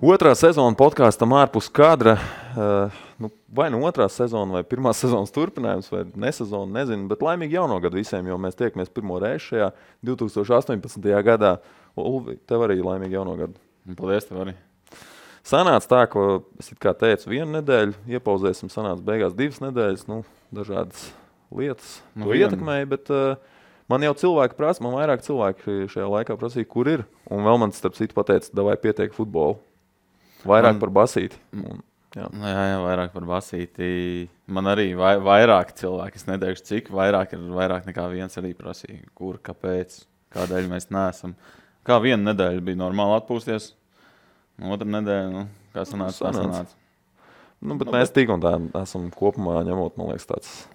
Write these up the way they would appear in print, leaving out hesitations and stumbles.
Otrā sezona podkāstam ārpus kadra. Vai nu otrā sezona, vai pirmā sezonas turpinājums, vai nesezona, nezinu. Bet laimīgi jauno gadu visiem, jo mēs tiekamies pirmo reizi šajā 2018. gadā. Ulvi, tev arī laimīgi jauno gadu. Paldies, tev arī. Sanāca tā, ko es it kā teicu, 1 nedēļu, iepauzēsim, sanāca beigās 2 nedēļas, dažādas lietas ietekmēja, bet man jau cilvēki prasa, man vairāk cilvēki šajā laikā prasīja, kur ir. Un vēl man starp citu pateica, davai pietiek futbolu. Vairāk par basīti. Jā, vairāk par basīti. Man arī vairāk cilvēki, es neteikšu cik, vairāk nekā viens arī prasīja, kur, kāpēc, kādēļ mēs neesam. Kā viena nedēļa bija normāli atpūsties, otra nedēļa, kā sanāca. Bet mēs tik un tā esam kopumā ņemot, man liekas, tāds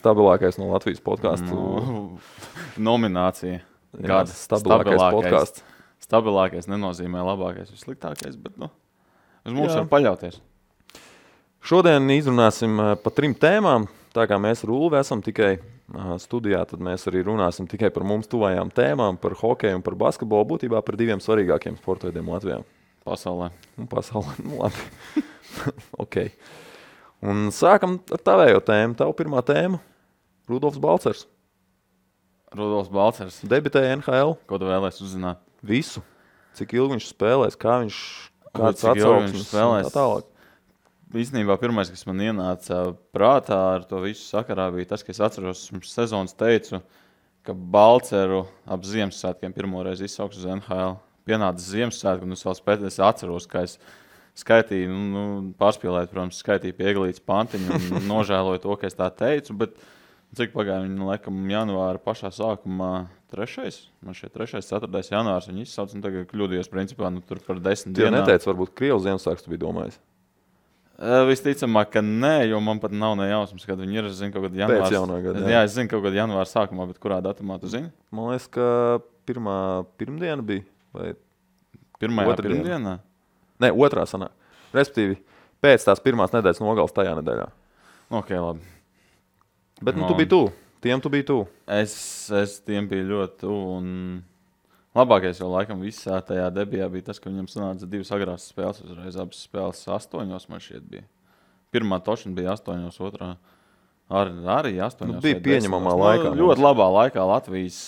stabilākais no Latvijas podcastu. Nominācija. Gada stabilākais podcasts. Stabilākais nenozīmē labākais, vissliktākais, bet uz mums var paļauties. Šodien izrunāsim pa 3 tēmām. Tā kā mēs ar Ulvi esam tikai studijā, tad mēs arī runāsim tikai par mums tuvajām tēmām, par hokeju un par basketbolu, būtībā par 2 svarīgākiem sporta veidiem Latvijā. Pasaulē, labi. Ok. Un sākam ar tavējo tēmu. Tavu pirmā tēma – Rudolfs Balcers. Rudolfs Balcers. Debitēja NHL. Ko tu vēlēs uzzināt? Visu. Cik ilgi viņš spēlēs, kāds atsauksmes un tā tālāk. Īstenībā pirmais, kas man ienāca prātā ar to visu sakarā, bija tas, ka es atceros, pirms sezonas teicu, ka Balceru ap Ziemassvētkiem pirmoreiz izsauks uz NHL. Pienāca Ziemassvētku, un es atceros, ka es skaitīju, pārspīlēt, protams, skaitīju pie Eglītes pantiņu un nožēloju to, ka es tā teicu, bet cik pagāja viņa, laikam, janvāra pašā sākumā 3. Man šeit 3. 4. janvārs viņa izsauc, un tagad kļūdījos, principā, tur par 10 dienām. Tu neteici, varbūt Krievs Ziemassvētku tu biji domājis? Visticamāk, ka nē, jo man pat nav ne jausmas, kad viņi ir. Es zinu, kaut kad janvārs. Pēc jaunā gada, jā, es zinu, kaut kad janvāra sākumā, bet kurā datumā tu zini? Man liekas, ka pirmdiena bija, vai pirmdienā? Nē, otrā sanāk. Respektīvi, pēc tās pirmās nedēļas nogales tajā nedēļā. Ok, labi. Bet tu biji tuvu. Tiem tu biji tuvu. Es tiem biju ļoti tuvu. Un labākais jau laikam visā tajā debijā bija tas, ka viņam sanāca 2 agrās spēles. Uzreiz abas spēles 8, man šķiet bija. Pirmā tošana bija 8, otrā arī 8. Bija pieņemamā laikā. Ļoti labā laikā Latvijas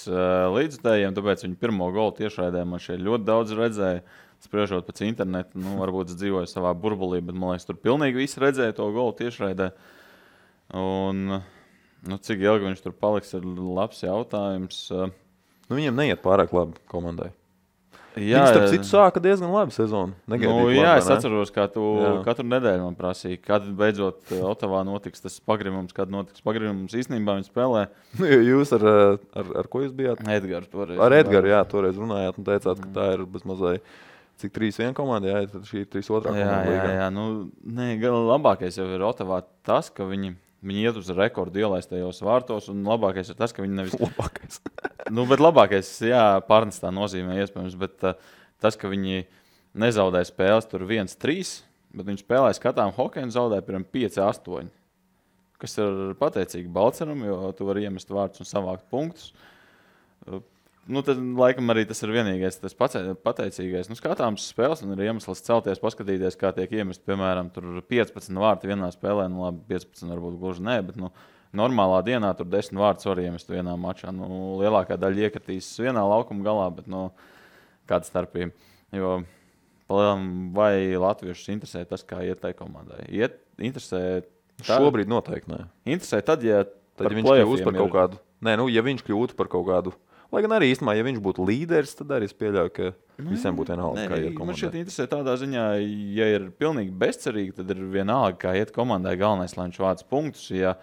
līdzutējiem, tāpēc viņi pirmo golu tiešraidē man šeit ļoti daudz redzēja. Spriežot pēc interneta, varbūt es dzīvoju savā burbulī, bet man liekas, tur pilnīgi visi redzēja to golu tiešraidē. Un cik ilgi viņš tur paliks, ir labs jautājums. Viņiem neiet pārāk labi komandai. Jā, viņi starp citu sāka diezgan labi sezonu. Es atceros, kā tu katru nedēļu man prasīji, kad beidzot Otavā notiks tas pagrimums, kad notiks pagrimums. Īstenībā viņi spēlē. Jūs ar ko jūs bijāt? Edgars toreiz. Ar Edgaru, jā, toreiz runājāt un teicāt, ka tā ir bezmazai. Cik 3-1 komanda, jā, tad šī ir 3-2 komanda. Jā, labākais jau ir Otavā tas, ka viņi iet uz rekordu ielaistajos vārtos, un labākais ir tas, ka viņi nevis... Labākais. Bet labākais, jā, pārnestā nozīmē iespējams, bet tas, ka viņi nezaudēja spēles tur 1-3, bet viņi spēlēja skatām hokeju un zaudēja piemēram 5-8, kas ir pateicīgi Balceram, jo tu vari iemest vārdus un savākt punktus. Tad, laikam, arī tas ir vienīgais, tas pateicīgais. Skatāms spēles, un ir iemesls celties, paskatīties, kā tiek iemest, piemēram, tur 15 vārti vienā spēlē, labi, 15 varbūt gluži nē, bet, normālā dienā tur 10 vārdus var iemest vienā mačā. Lielākā daļa iekritīs vienā laukuma galā, bet, kāda starpība. Jo, vai latviešus interesē tas, kā iet tai komandai? Interesē... Šobrīd noteikti nē. Interesē tad, ja viņš kļūst par kaut kādu... Nē, ja viņš kļūtu par kaut kādu... Lai gan arī īstenībā, ja viņš būtu līderis, tad arī es pieļauju, ka visiem būtu vienalga, kā iet komandai. Man šeit interesē tādā ziņā, ja ir pilnīgi bezcerīgi, tad ir vienalga, kā iet komandai. Galvenais, lai viņš vāc punktus. Ja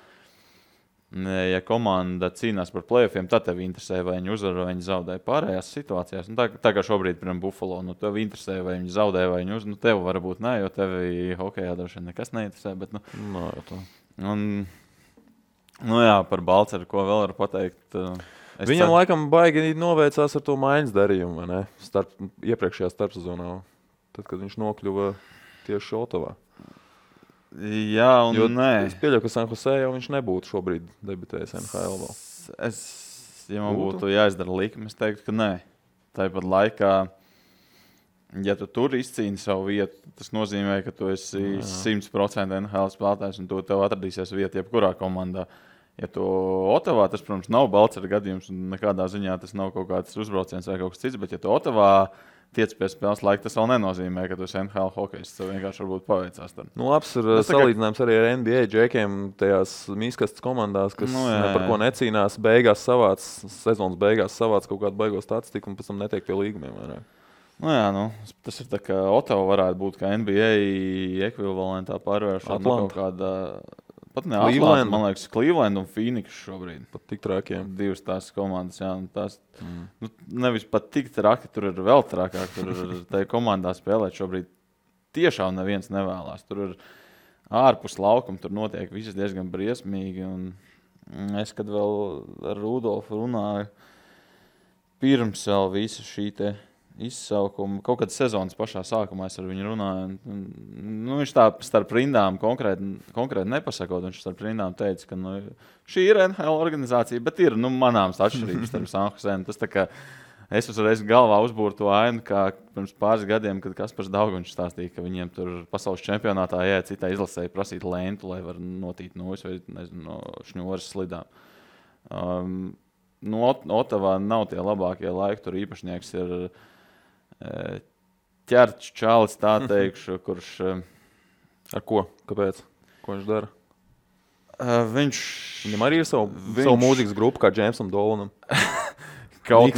komanda cīnās par play-offiem, tad tev interesē, vai viņi uzvar, vai viņi zaudē pārējās situācijās. Tā kā šobrīd, piemēram, Buffalo, tev interesē, vai viņi zaudē, vai viņi uzvar. Tev varbūt nē, jo tevi hokejā droši vien nekas neinteresē. Bet, par Balceru, ko vēl var pateikt... Viņam laikam baigi noveicās ar to maiņas darījumu, vai ne? Iepriekšējā starpsezonā, tad, kad viņš nokļuva tieši Otavā. Jā, un nē. Es pieļauju, ka San Jose jau viņš nebūtu šobrīd debitējis NHL vēl. Ja man būtu jāizdara likme, es teiktu, ka nē. Tāpat laikā Ja tu tur izcīni savu vietu, tas nozīmē, ka tu esi 100% NHL spēlētājs un tev atradīsies vieta jebkurā komandā. Ja tu Otavā, tas, protams, nav Balcera gadījums un nekādā ziņā tas nav kaut kāds uzbrauciens vai kaut kas cits, bet ja tu Otavā tiec pie spēles laika, tas vēl nenozīmē, ka tu esi NHL hokejs. Tas vienkārši varbūt paveicās. Nu, labs ir salīdzinājums arī ar NBA džekiem tajās mīskastes komandās, kas par ko necīnās. Sezonas beigās savāc kaut kādu baigo statistiku un pēc tam netiek pie līgumiem vairāk. Tas ir tā kā Otava varētu būt kā NBA ekvivalentā pārvēršana kaut kādā. Pat ne Atlanta, man liekas, Cleveland un Phoenix šobrīd. Pat tik traki, jā. Divas tās komandas, jā. Tās, nevis pat tik traki, tur ir vēl trakāk. Tur ir tajā komandā spēlēt šobrīd tiešām neviens nevēlās. Tur ir ārpus laukuma, tur notiek viss diezgan briesmīgi. Un es, kad vēl ar Rudolfu runāju, pirms vēl visa šī te izsaukuma, kaut kad sezonas pašā sākumā es ar viņu runāju. Viņš tā starp rindām konkrēti nepasakot, viņš starp rindām teica, ka šī ir NHL organizācija, bet ir manāms atšķirības starp San Jose. Tas tā kā es uzreiz galvā uzbūru to ainu, kā pirms pāris gadiem, kad Kaspars Daugaņš stāstīja, ka viņiem tur pasaules čempionātā jāiet citai izlasēji prasīt lentu, lai var notīt nūjas vai no šņoras slidām. Otavā nav tie labākie laiki, tur īpašnieks ir ķerts čalis, tā teikšu, kurš... Ar ko? Kāpēc? Ko viņš dara? Viņam arī ir savu mūzikas grupu, kā Jamesam Dolanam. Kaut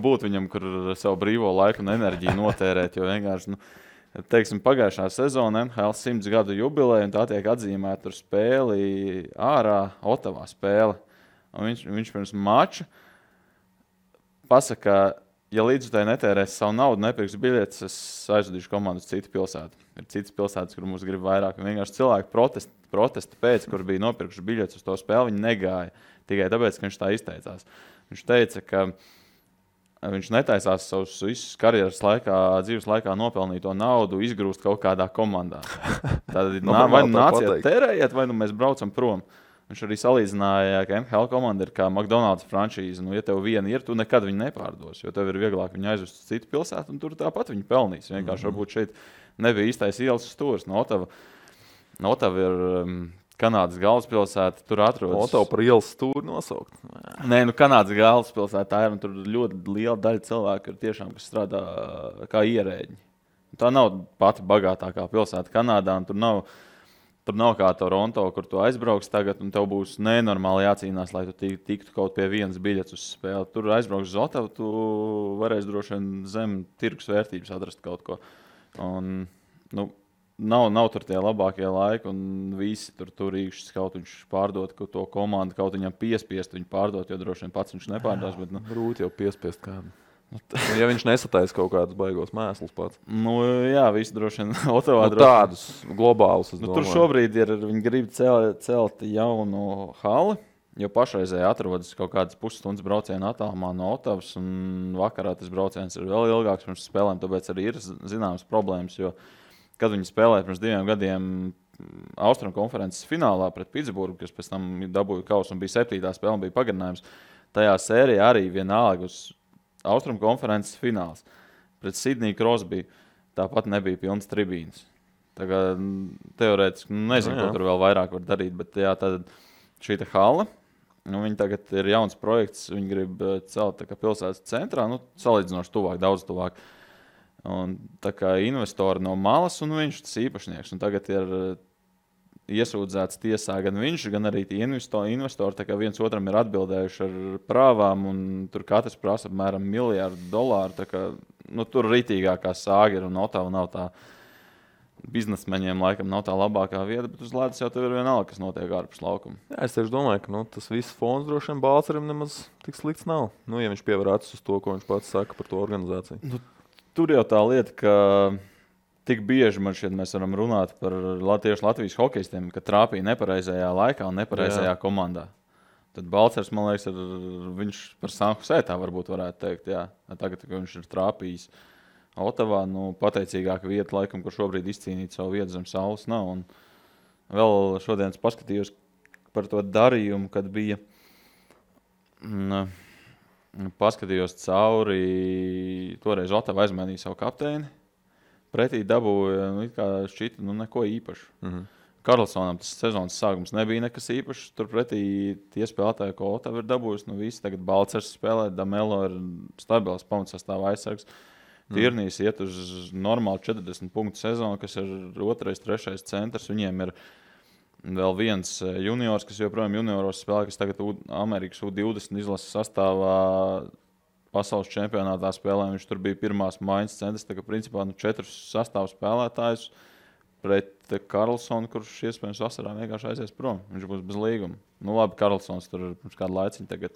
būtu viņam, kur savu brīvo laiku un enerģiju notērēt, jo vienkārši, teiksim, pagājušā sezona NHL 100 gadu jubileja, un tā tiek atzīmēta tur spēli ārā, Otavā spēle. Un viņš pirms mača pasaka, ja līdzutēji netērēs savu naudu, nepirks biļetes, es aizvadīšu komandu uz citu pilsētu. Ir citas pilsētas, kur mums grib vairāk. Un vienkārši cilvēki protesta pēc, kur bija nopirkuši biļetes uz to spēli, viņi negāja. Tikai tāpēc, ka viņš tā izteicās. Viņš teica, ka viņš netaisās savus visus karjeras laikā, dzīves laikā nopelnīto naudu izgrūst kaut kādā komandā. Tad vai nāciet terējiet, vai mēs braucam prom. Viņš arī salīdzināja, ka NHL komanda ir kā McDonald's franšīze. Ja tev viena ir, tu nekad viņu nepārdos, jo tev ir vieglāk viņu aizvest uz citu pilsētu, un tur tāpat viņi pelnīs. Vienkārši varbūt šeit nebija īstais ielas stūris. Otava ir Kanādas galvaspilsēta, tur atrodas. Otava par ielas stūri nosaukt? Nē, Kanādas galvaspilsēta tā ir, un tur ļoti liela daļa cilvēku ir tiešām, kas strādā kā ierēģi. Tā nav pati bagātākā pilsēta Kanādā, un tur nav kā Toronto, kur tu aizbrauks tagad, un tev būs nenormāli jācīnās, lai tu tiktu kaut pie vienas biļetes uz spēli. Tur aizbrauks uz Otavu, tu varēsi droši vien zem tirgus vērtības atrast kaut ko. Un, nav tur tie labākie laiki, un visi tur īkšķis kaut viņš pārdot to komandu, kaut viņam piespiest viņu pārdot, jo droši vien pats viņš nepārdās. Bet, Grūti jau piespiest kādu. Ja viņš nesataisa kaut kādus baigos mēslus pats. Jā, visi droši vien Otavā tādus globālus. Tur šobrīd viņi grib celt jaunu hali, jo pašreizēji atrodas kaut kādas pusstundas brauciena attālumā no Otavas, un vakarā tas brauciens ir vēl ilgāks pirms spēlēm, tāpēc arī ir zināmas problēmas, jo, kad viņi spēlēja pirms 2 gadiem Austrumkonferences finālā pret Pitsburgu, kas pēc tam dabūja kausu un bija 7. spēle un bija pagarinājums, tajā sērijā arī vienalga uz Austrumkonferences fināls. Pret Sidniju Crosby tāpat nebija pilns tribīnas. Tagad teorētiski nezinu, ko tur vēl vairāk var darīt, bet tad šī hala, viņi tagad ir jauns projekts, viņi grib celt tā kā pilsētas centrā, salīdzinoši tuvāk, daudz tuvāk. Un tā kā investori no malas un viņš tas īpašnieks. Un tagad ir iesūdzēts tiesā gan viņš, gan arī tie investori, tā kā viens otram ir atbildējuši ar prāvām, un tur katrs prasa apmēram $1 miljardu. Tā kā, tur rītīgākā sāga ir, un Otava nav tā, biznesmeņiem laikam nav tā labākā vieta, bet uz ledus jau tev ir vienalga, kas notiek ārpus laukuma. Jā, es tieši domāju, ka tas viss fons droši vien Balcerim nemaz tik slikts nav. Ja viņš pievar acis uz to, ko viņš pats saka par to organizāciju. Tur jau tā lieta, ka tik bieži mēs varam runāt par tieši Latvijas hokejistiem, ka trāpīja nepareizajā laikā un nepareizajā komandā. Tad Balcers, man liekas, viņš par San Jose tā varbūt varētu teikt. Jā. Tagad, kad viņš ir trāpījis Otavā, pateicīgāka vieta, laikam, kur šobrīd izcīnīt savu vietu zem saules nav. Un vēl šodien paskatījos par to darījumu, kad bija paskatījos cauri, toreiz Otava aizmainīja savu kapteini. Pretī dabūja, šķita, neko īpašu. Karlsonam tas sezonas sākums nebija nekas īpašs. Turpretī tie spēlētāji, ko Otava ir dabūjusi, visi tagad Balcers spēlē, Damelo ir stabils pamatsastāvā aizsargs. Tirnīs iet uz normālu 40 punktu sezonu, kas ir 2., 3. centrs. Viņiem ir vēl viens juniors, kas joprojām junioros spēlē, kas tagad Amerikas U20 izlases sastāvā pasaules čempionātā spēlē. Viņš tur bija pirmās maiņas centrs, tā kā principā 4 sastāvu spēlētājus pret Karlsonu, kurš iespējams vasarā vienkārši aizies prom. Viņš būs bez līguma. Labi, Karlsons tur pirms kādu laiciņu tagad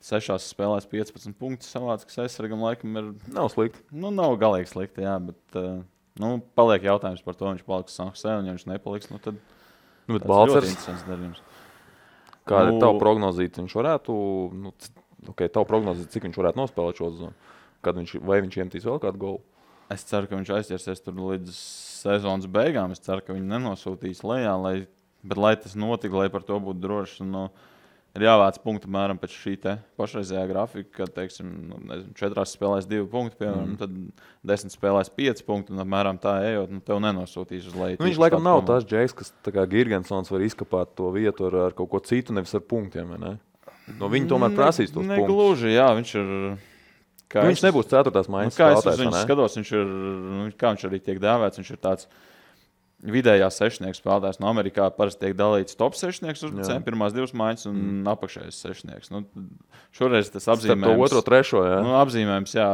6 spēlēs 15 punktus savāds, kas aizsargam laikam ir... Nav slikti. Nav galīgi slikti, jā, bet paliek jautājums par to, viņš paliks San Jose, un ja viņš nepaliks, tad bet Balcers, interesants darījums. Kāda ir tava prognozīt? Viņš varētu, tava prognozīt, cik viņš varētu nospēlēt šo sezonu? Vai viņš iemetīs vēl kādu golu? Es ceru, ka viņš aizķersies tur līdz sezonas beigām. Es ceru, ka viņi nenosūtīs lejā, bet lai tas notika, lai par to būtu droši, ir jāvāc punktu mēram pēc šī te pašreizējā grafika, kad, teiksim, 4 spēlēs 2 punkti, piemēram, tad 10 spēlēs 5 punkti, un apmēram tā ejot, tev nenosūtīs uz leju. Viņš laikam nav tās Džeks, kas tā kā Girgensons var izkapāt to vietu ar kaut ko citu, nevis ar punktiem, vai ne? Viņi tomēr prasīs tos punktus. Negluži, jā, viņš ir... Viņš nebūs 4. maiņas spēlētājs, viņš skatos, viņš ir, kā viņš arī tiek dēvēts, viņš ir tāds vidējā sešnieks spēlētājs. No Amerikā parasti tiek dalīts top sešnieks uzbrucējiem, pirmās 2 maiņas un apakšējais sešnieks. Šoreiz tas apzīmējums... Starp to 2., 3., jā. Apzīmējums, jā,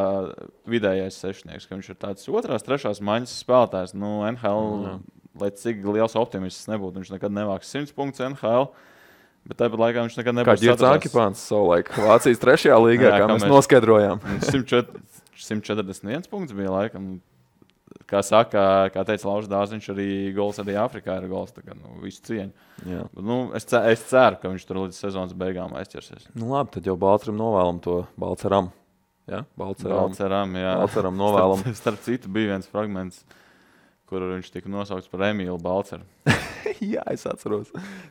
vidējais sešnieks, ka viņš ir tāds 2., 3. maiņas spēlētājs. NHL, lai cik liels optimists nebūtu, viņš nekad nevāks 100 punktus NHL. Bet tāpat laikā viņš nekad nebūs satrasās. Kā Girts Akipāns savulaik Vācijas 3. līgā, kā mēs noskaidrojām. 141 punkts bija laikam. Kā saka, kā teica Laužs Dāziņš, arī gols arī Āfrikā ir gols. Tā kā, visu cieņu. Bet, es ceru, ka viņš tur līdz sezonas beigām aizķersies. Labi, tad jau Balceram novēlam to Balceram. Ja? Balceram, jā. Balceram novēlam. Starp citu bija viens fragments, kur viņš tika nosaukts par Emīlu Balceru. Jā, es atceros.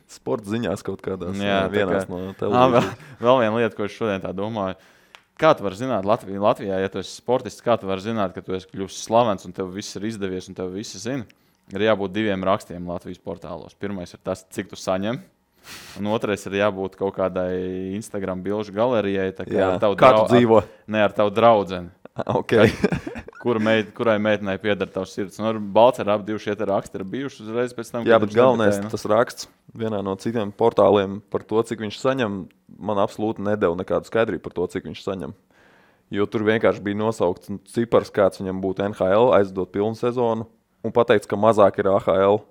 Sporta ziņās kaut kādās vienās no televīzijas. Vēl viena lieta, ko es šodien tā domāju. Kā tu vari zināt Latvijā, ja tu esi sportists, kā tu vari zināt, ka tu esi kļuvis slavens un tev viss ir izdevies un tev visi zina? Ir jābūt 2 rakstiem Latvijas portālos. Pirmais ir tas, cik tu saņem. Un otrais ir jābūt kaut kādai Instagram bilžu galerijai. Kā tu dzīvo? Ne ar tavu draudzeni. Okay. Kurai meitenei pieder tavs sirds. Balcerā abi šie raksti ir bijuši uzreiz pēc tam. Jā, bet galvenais tas raksts vienā no citiem portāliem par to, cik viņš saņem, man absolūti nedeva nekādu skaidrību par to, cik viņš saņem. Jo tur vienkārši bija nosaukts cipars, kāds viņam būtu NHL, aizdot pilnu sezonu, un pateikts, ka mazāk ir AHL.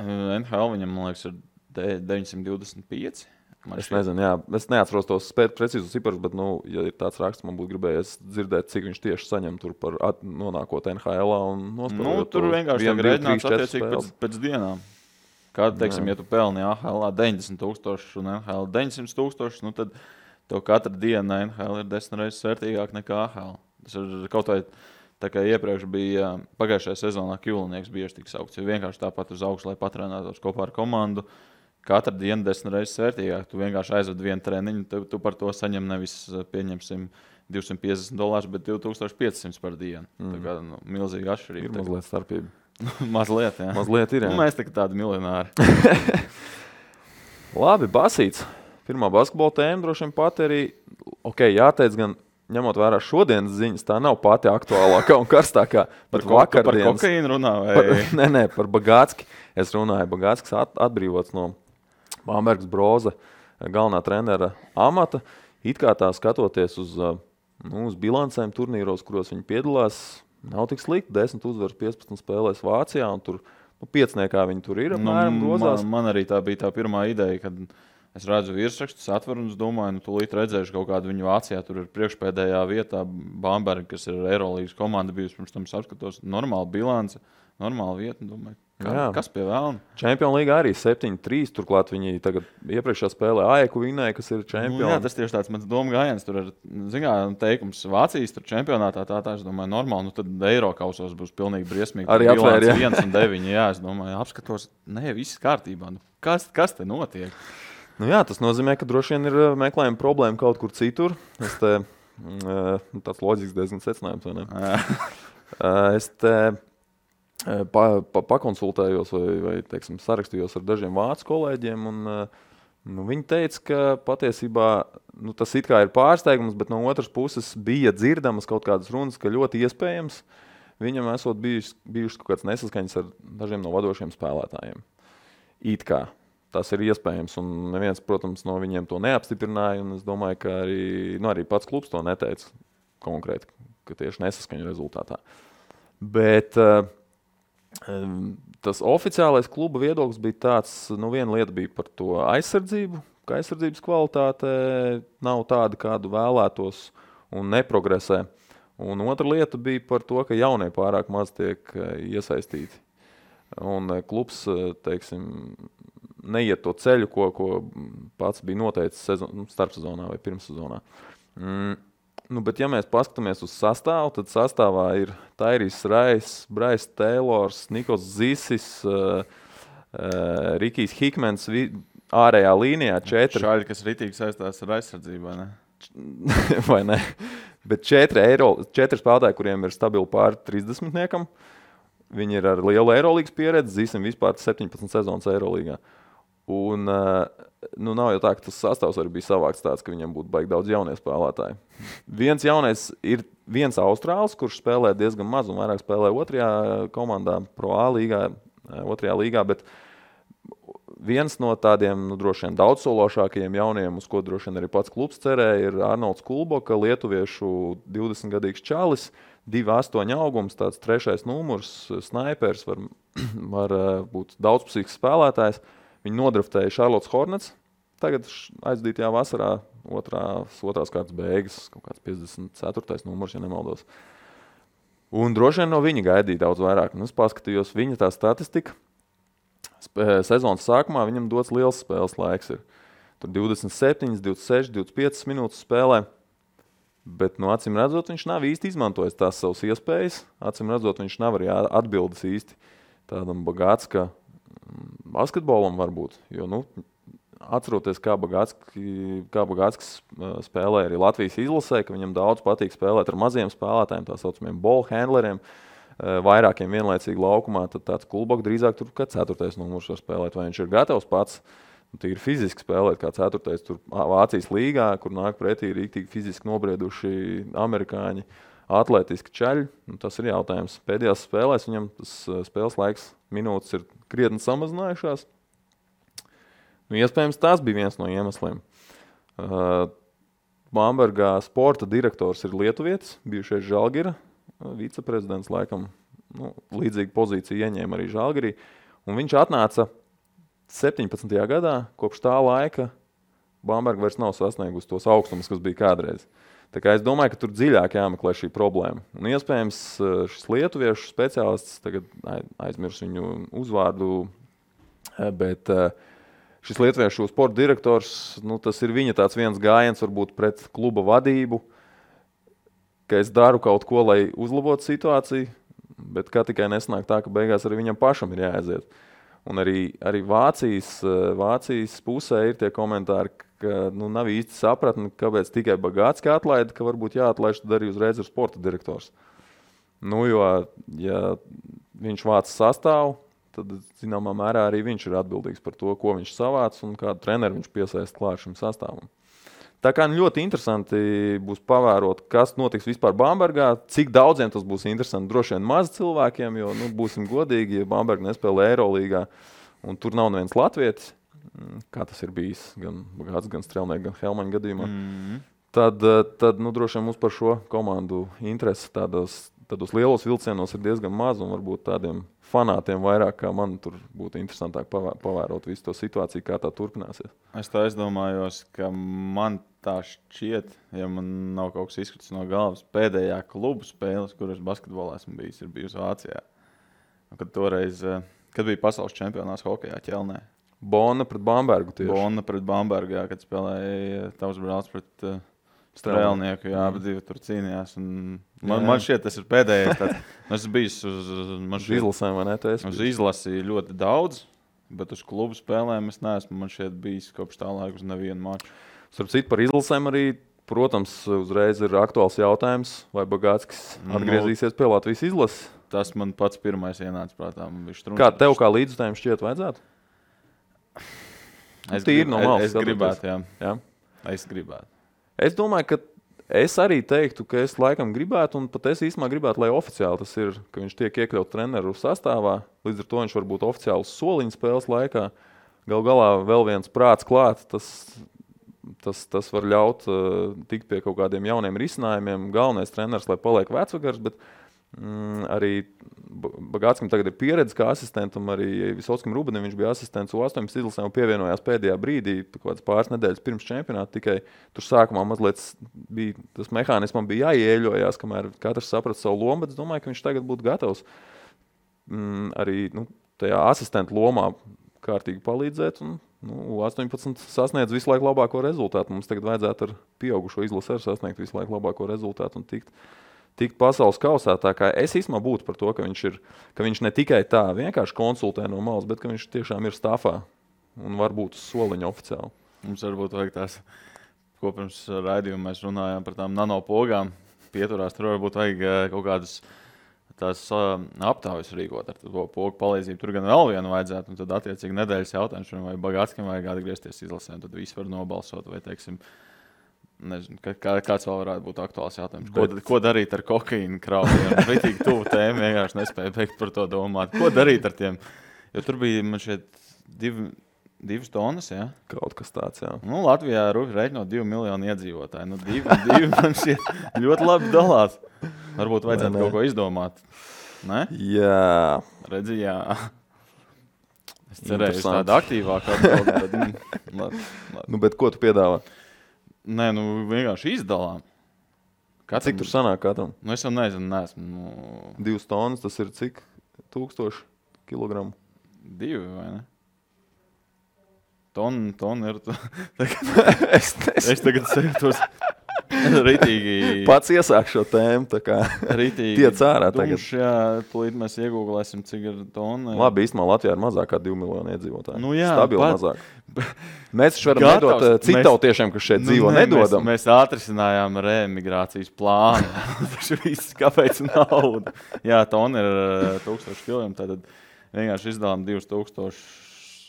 NHL viņam, man liekas, ir 925. Es nezinu, jā. Es neatceros tos precīzus ciparus, bet, ja ir tāds raksts, man būtu gribējies dzirdēt, cik viņš tieši saņem tur par nonākot NHL-ā un nospēlējot. Tur vienkārši tiek rēķināts attiecīgi pēc dienām. Kāda, teiksim, ja tu pelni AHL 90,000 un NHL 900,000, tad tev katra diena NHL ir 10 reizes vērtīgāk nekā AHL. Tas ir kaut vai tā kā iepriekš bija pagājušajā sezonā Kjulnieks bieži tik saukts, jo vienkārši tāpat uz augšu, lai patrenētos kopā ar komandu. Katra diena 10 reizes vērtīgāk. Tu vienkārši aizved vienu treniņu, tu par to saņem nevis, pieņemsim, $250, bet 2,500 par dienu. Tā kā milzīga atšķirība. Ir mazliet starpība. Mazliet, jā. Mazliet ir, jā. Mēs tā kā tādi miljonāri. Labi, basīts. Pirmā basketbola tēma droši vien pat arī, jāteic gan, ņemot vērā šodienas ziņas, tā nav pati aktuālākā un karstākā. Par kokaīnu runā? Nē, par Bagātski. Es runāju, Bagātskis atbrīvots no Bambergas Broza galvenā trenera amata. It kā tā skatoties uz bilancēm turnīros, kuros viņi piedalās, nav tik slikti. 10 uzvaras 15 spēlēs Vācijā, un tur 5. viņi tur ir apmēram grozās. Man arī tā bija tā pirmā ideja, kad es redzu virsrakstus, atveru un es domāju, tūlīt redzēšu kaut kādu viņu Vācijā. Tur ir priekšpēdējā vietā Bamberga, kas ir Eirolīgas komanda bijusi, pirms tam apskatos. Normāla bilance, normāla vieta, domāju. Kas pie vēlna? Čempionu līgā arī 7-3, turklāt viņi tagad iepriekšā spēlē AEK vinēja, kas ir čempioni. Jā, tas tieši tāds mans doma gājiens. Tur ir, teikums Vācijas tur čempionātā, tā es domāju, normāli, tad Eirokausos būs pilnīgi briesmīgi. Arī apvēr, jā. 1-9, jā, es domāju, apskatos, viss kārtībā. Kas te notiek? Nu jā, tas nozīmē, ka droši vien ir meklējuma problēma kaut kur citur. Tāds loģisks diezgan secinājums, vai ne? Es te pakonsultējos vai teiksim, sarakstījos ar dažiem vācu kolēģiem, un viņi teica, ka patiesībā tas it kā ir pārsteigums, bet no otras puses bija dzirdamas kaut kādas runas, ka ļoti iespējams viņam esot bijušas kaut kāds nesaskaņas ar dažiem no vadošiem spēlētājiem. It kā tas ir iespējams, un neviens, protams, no viņiem to neapstiprināja, un es domāju, ka arī pats klubs to neteica konkrēti, ka tieši nesaskaņu rezultātā. Bet tas oficiālais kluba viedoklis bija tāds, viena lieta bija par to aizsardzību, ka aizsardzības kvalitāte nav tāda, kādu vēlētos un neprogresē. Un otra lieta bija par to, ka jaunie pārāk maz tiek iesaistīti. Un klubs, teiksim, neiet to ceļu, ko pats bija noteicis starpsezonā vai pirmssezonā. Bet ja mēs paskatāmies uz sastāvu, tad sastāvā ir Tairijs Rais, Brais Teilors, Nikos Zisis, Rikijs Hikmens, ārējā līnijā 4. Šāļi, kas ritīgi saistās ar aizsardzību, vai ne? Vai ne? Bet 4 spēlētāji, kuriem ir stabili pāri 30-niekam, viņi ir ar lielu Eirolīgas pieredzi, Zisim vispār 17 sezonas Eirolīgā. Un nav jau tā, ka tas sastāvs arī bija savāks tāds, ka viņam būtu baigi daudz jaunie spēlētāji. Viens jaunais ir viens Austrāls, kurš spēlē diezgan maz un vairāk spēlē otrajā komandā, Pro A līgā, otrajā līgā, bet viens no tādiem droši vien daudzsološākajiem jauniem, uz ko droši vien arī pats klubs cerēja, ir Arnolds Kulboka, lietuviešu 20-gadīgs čalis, 2,8 augums, tāds 3. numurs, snaipers, var būt daudzpusīgs spēlētājs. Viņi nodraftēja Charlottes Hornets, tagad aizdītajā vasarā otrās kārtas beigas, kaut kāds 54. numurs, ja nemaldos. Un droši vien no viņa gaidīja daudz vairāk. Un es paskatījos viņa tā statistika. Sezonas sākumā viņam dots liels spēles laiks ir. Tur 27, 26, 25 minūtes spēlē. Bet, acīm redzot, viņš nav īsti izmantojis tās savas iespējas. Acīm redzot, viņš nav arī atbildes īsti tādam Bagātska basketbolam varbūt, jo, atceroties, kā Bagātskis spēlē arī Latvijas izlasē, ka viņam daudz patīk spēlēt ar maziem spēlētājiem, tā saucamiem ball handleriem, vairākiem vienlaicīgi laukumā, tad tāds Kulboka drīzāk tur kā 4. numurs var spēlēt, vai viņš ir gatavs pats, tīri fiziski spēlēt kā 4. tur Vācijas līgā, kur nāk pretī rīktīgi fiziski nobrieduši amerikāņi, atlētiski čaļi, tas ir jautājums. Pēdējās spēlēs viņam tas spēles laiks minūtes ir krietni samazinājušās. Iespējams, tas bija viens no iemesliem. Bambergā sporta direktors ir lietuvietis, bijušais Žalgira, viceprezidents laikam, līdzīgu pozīciju ieņēma arī Žalgirī. Un viņš atnāca 17. gadā, kopš tā laika Bamberga vairs nav sasniegusi tos augstumus, kas bija kādreiz. Tā kā es domāju, ka tur dziļāk jāmeklē šī problēma. Un iespējams šis lietuviešu speciālists, tagad aizmirs viņu uzvārdu, bet šis lietuviešu sporta direktors, tas ir viņa tāds viens gājiens varbūt pret kluba vadību, ka es daru kaut ko, lai uzlabotu situāciju, bet kā tikai nesnāk tā, ka beigās arī viņam pašam ir jāaiziet. Un arī Vācijas pusē ir tie komentāri, ka nav īsti sapratni, kāpēc tikai Bagātski atlaida, ka varbūt jāatlaiž tad arī uzreiz ir sporta direktors. Jo, ja viņš vāc sastāvu, tad, zināmā mērā, arī viņš ir atbildīgs par to, ko viņš savāc un kādu treneru viņš piesaist klāt šim sastāvam. Tā kā ļoti interesanti būs pavērot, kas notiks vispār Bambergā, cik daudziem tas būs interesanti. Droši vien maz cilvēkiem, jo būsim godīgi, ja Bamberga nespēlē Eirolīgā un tur nav neviens latvietis, kā tas ir bijis gan Bagāts, gan Strelnieks, gan Helmaņa gadījumā, tad droši vien mums par šo komandu interesi tādos lielos vilcienos ir diezgan maz un varbūt tādiem fanātiem vairāk, kā man tur būtu interesantāk pavērot visu to situāciju, kā tā turpināsies. Es tā aizdomājos, ka man tā šķiet, ja man nav kaut kas izkritis no galvas, pēdējā klubu spēles, kuras basketbolā esmu bijis, ir bijusi Vācijā. Kad toreiz, kad bija pasaules čempionāts hokejā Ķelnē. Bonna pret Bambergu tieši. Bonna pret Bambergu, jā, kad spēlēja tavs brālis pret Strēlnieku, jā, bet divi tur cīnījās. Man šķiet, tas ir pēdējais. Es biju uz izlasēm, vai ne? Uz izlasi ļoti daudz. Bet uz klubu spēlēm es neesmu man šeit bijis kopš tā laika uz nevienu maču. Starp citu, par izlasēm arī, protams, uzreiz ir aktuāls jautājums, vai Bagātskis atgriezīsies pie Latvijas izlases. Tas man pats pirmais ienāca prātā. Kā tev kā līdzutājiem šķiet vajadzētu? Es gribētu, jā. Es gribētu. Es domāju, ka es arī teiktu, ka es laikam gribētu, un pat es īstenībā gribētu, lai oficiāli tas ir, ka viņš tiek iekļauts treneru sastāvā. Līdz ar to viņš var būt oficiāls soliņa spēles laikā. Galu galā vēl viens prāts klāt, tas var ļaut tikt pie kaut kādiem jauniem risinājumiem. Galvenais treneris, lai paliek vecvagars, bet arī Bagātskam tagad ir pieredze kā asistentam, arī Visotskim Rubenim viņš bija asistents U18 izlasēm un pievienojās pēdējā brīdī, pāris nedēļas pirms čempionāta, tikai tur sākumā mazliet bija, tas mehānismam bija jāieļojās, kamēr katrs saprata savu lomu, bet es domāju, ka viņš tagad būtu gatavs arī tajā asistenta lomā kārtīgi palīdzēt un U18 sasniedz visu laiku labāko rezultātu. Mums tagad vajadzētu ar pieaugušo izlasi sasniegt visu laiku labāko rezultātu un tikt pasaules kausā. Tā kā es īstenībā būtu par to, ka viņš ne tikai tā vienkārši konsultē no malas, bet ka viņš tiešām ir stafā un varbūt uz soliņa oficiāli. Mums varbūt vajag tās, ko pirms raidījuma mēs runājām par tām nanopogām, pieturās, tur varbūt vajag kaut kādas tās aptaujas rīkot ar to pogu palīdzību. Tur gan vēl vienu vajadzētu, un tad attiecīgi nedēļas jautājums, vai Bagātskim vajag atgriezties izlasēm, tad visi var nobalsot, vai teiksim, nezinu, kāds vēl varētu būt aktuāls jautājums. Ko darīt ar kokaīnu kraujiem? Ritīgi tuvu tēmu, vienkārši nespēju beigt par to domāt. Ko darīt ar tiem? Jo tur bija man šeit 2 tonnas, jā? Kaut kas tāds, jā. Latvijā reiķinot 2 miljonu iedzīvotāju. 2 man šeit ļoti labi dalās. Varbūt vajadzētu kaut ko izdomāt. Ne? Jā. Redzi, jā. Es cerēju, ka tāda aktīvāka atbildi, bet bet ko tu piedāvā? Nē, vienkārši izdalām. Cik tur sanāk katram? Es jau neesmu. 2 tonnas, tas ir cik? 1000 kilogramu? 2, vai ne? Tonna ir... Es tagad sajūtos ritīgi... Pats iesāk šo tēmu, tā kā tiec ārā tagad. Jā, tūlīt mēs iegūglēsim, cik ir tonna. Labi, īstenībā Latvijā ir mazāk kā 2 miljoni iedzīvotāji. Jā, stabili mazāk. Mēs taču varam nedot citautiešiem, kas šeit dzīvo, nedodam. Mēs atrisinājām reemigrācijas plānu. Taču viss, kāpēc nauda? Jā, tonna ir 1000 kilogrami, tad vienkārši izdalām 2000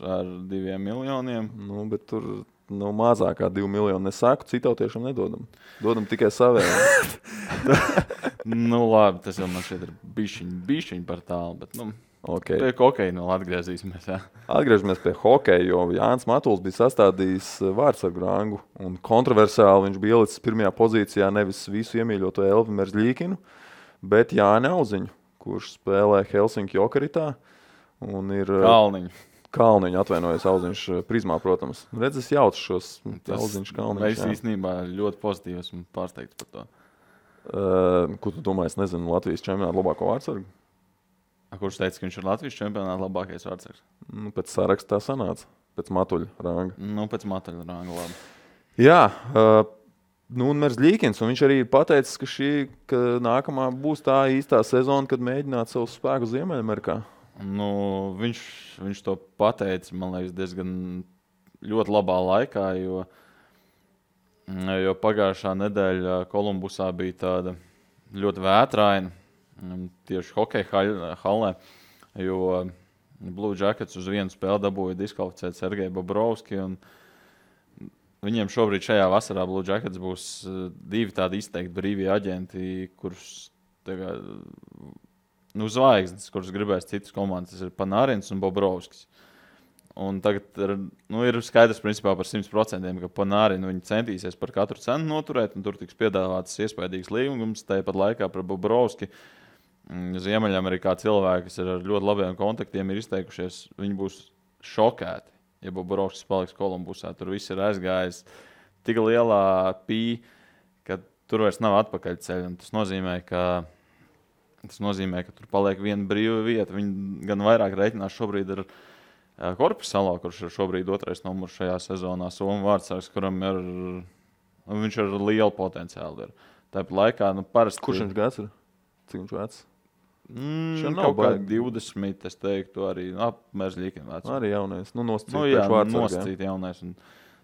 ar 2 miljoniem. Bet tur mazāk kā 2 miljoni nesaku, citautiešiem nedodam. Dodam tikai savējiem. Labi, tas jau man šeit ir bišķiņ par tālu, bet okay. Pie hokeja atgriezīsimies. Jā. Atgriežamies pie hokeja, jo Jānis Matuls bija sastādījis vārdsargu rangu un kontroversiāli viņš bija ielicis pirmajā pozīcijā nevis visu iemīļoto Elvi Merzļīkinu, bet Jāni Auziņu, kurš spēlē Helsinki Jokeritā un ir... Kalniņu atvainojas Auziņš prizmā, protams. Redz, es jaucu šos Auziņš Kalniņš. Es īstenībā ļoti pozitīvi esmu pārsteigts par to. Ko tu domā, es nezinu, Latvijas čempionāta labāko vārdsargu? Kurš teica, ka viņš ir Latvijas čempionāta labākais vārdsargs? Pēc sarakstā sanāca. Pēc Matuļa ranga. Pēc Matuļa ranga, labi. Jā, un Merzļīkins, un viņš arī pateicis, ka nākamā būs tā īstā sezona, kad mēģināt savu spēku Ziemeļamerikā. Viņš to pateica, man liekas, diezgan ļoti labā laikā, jo pagājušā nedēļa Kolumbusā bija tāda ļoti vētraina, tieši hokeja hallē, jo Blue Jackets uz vienu spēli dabūja diskvalificēt Sergeju Bobrovski, un viņiem šobrīd šajā vasarā Blue Jackets būs 2 tādi izteikti brīvie aģenti, kurus tagad... zvaigznes, kuras gribēs citas komandas, tas ir Panārins un Bobrovskis. Un tagad ir skaidrs principā par 100%, ka Panārinu viņi centīsies par katru cenu noturēt, un tur tiks piedāvāts iespaidīgs līgums, tāpat laikā par Bobrovski. Ziemeļamerikā cilvēki, kas ir ar ļoti labiem kontaktiem, ir izteikušies, viņi būs šokēti, ja Bobrovskis paliks Kolumbusā. Tur viss ir aizgājis tik lielā ka tur vairs nav atpakaļceļa, un tas nozīmē, ka tur paliek viena brīva vieta. Viņi gan vairāk reiķinās šobrīd ar Korpisalo, kurš ir šobrīd 2. numurs šajā sezonā. Somu vārdsargs, kuram viņš ir liela potenciāli. Tāpat laikā, parasti... Kurš viņš gads ir? Cik viņš vecs? Kaut kā 20, es teiktu, arī apmērzļīkiem vecumā. Arī jaunais, nosacīt jaunais. Un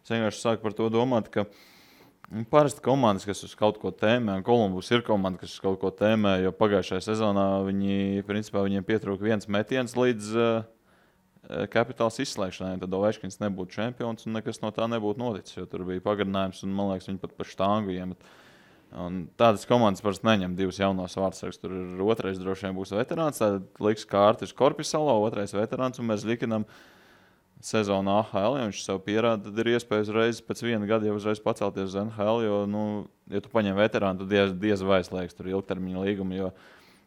es vienkārši sāku par to domāt, ka parasti komandas, kas uz kaut ko tēmē, un Kolumbus ir komanda, kas uz kaut ko tēmē, jo pagājušajā sezonā viņiem pietrūka viens metiens līdz kapitāls izslēgšanai, tad Ovečkins nebūtu čempions un nekas no tā nebūtu noticis, jo tur bija pagarinājums un, man liekas, viņi pat pa štangu iemet. Un tādas komandas parasti neņem divus jaunos vārdsargus. Tur ir otrais droši vien būs veterāns, tad liks kārtis Korpisalo, otrais veterāns, un mēs likinam sezonu AHL, ja viņš sev pierāda, tad ir iespēja uzreiz pēc viena gada jau uzreiz pacelties uz NHL, jo, ja tu paņem veterānu, tad diez vai slēgs tur ilgtermiņa līgumu, jo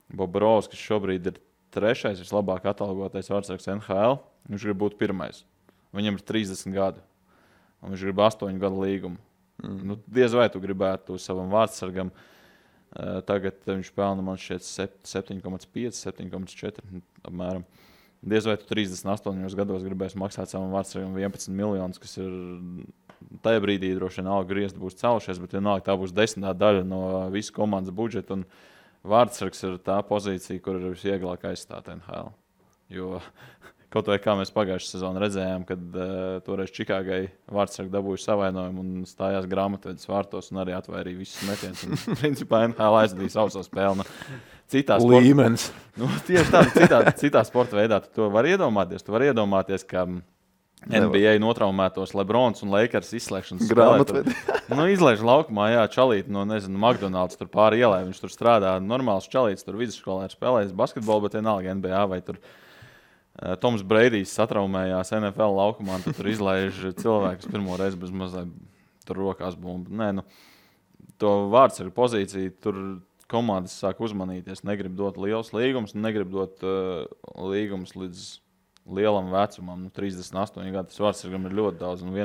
Bobrovskis šobrīd ir trešais, vislabāk atalgotais vārdsargs NHL, viņš grib būt pirmais. Viņam ir 30 gadu, un viņš grib 8 gadu līgumu. Diez vai tu gribētu savam vārdsargam. Tagad viņš pelna, man šķiet, 7,5, 7,4 apmēram. Diez vai tu 38 gados gribēsi maksāt savam vārdsargam 11 miljonus, kas ir tajā brīdī droši vien algu griezti būs celšies, bet vienalga tā būs 10. daļa no visu komandas budžeta, un vārdsargs ir tā pozīcija, kur ir visvieglāk aizstāt NHL. Jo kaut vai kā mēs pagājušajā sezonā redzējām, kad toreiz Čikāgai vārdsargi dabūja savainojumu un stājās grāmatvedis vārtos un arī atvairīja visus metienus. Un principā NHL aizdīja savu spēli. Līmenis. Tieši tā, citā sporta veidā tu to vari iedomāties. Tu vari iedomāties, ka NBA notraumētos Lebrons un Lakers izslēgšanas grāmatvedi. Izlaiž laukumā, čalīt no, McDonald's tur pāri ielai. Viņš tur strādā normāls čalīts, tur vidusskolā ir spēlējis basketbolu, bet vienalga NBA vai tur Toms Breidijs satraumējās NFL laukumā, un tur izlaiž cilvēkus pirmo reizi bez mazliet tur rokās bumbu. To vārdsargu pozīciju tur komandas sāk uzmanīties, negrib dot liels līgums, negrib dot līgums līdz lielam vecumam, 38 gadu. Tas vārdsargam ir ļoti daudz, un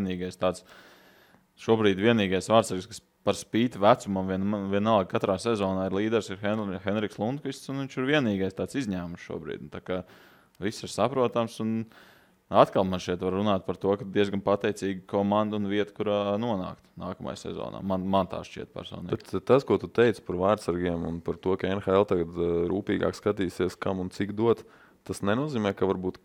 šobrīd vienīgais vārdsargs, kas par spīti vecumam vienalga katrā sezonā ir līderis, ir Henriks Lundqvists, un viņš ir vienīgais tāds izņēmums šobrīd. Tā kā viss ir saprotams, un atkal man šeit var runāt par to, ka diezgan pateicīga komanda un vieta, kurā nonākt nākamajā sezonā. Man tā šķiet personīgi. Bet tas, ko tu teici par vārdsargiem un par to, ka NHL tagad rūpīgāk skatīsies, kam un cik dot, tas nenozīmē, ka varbūt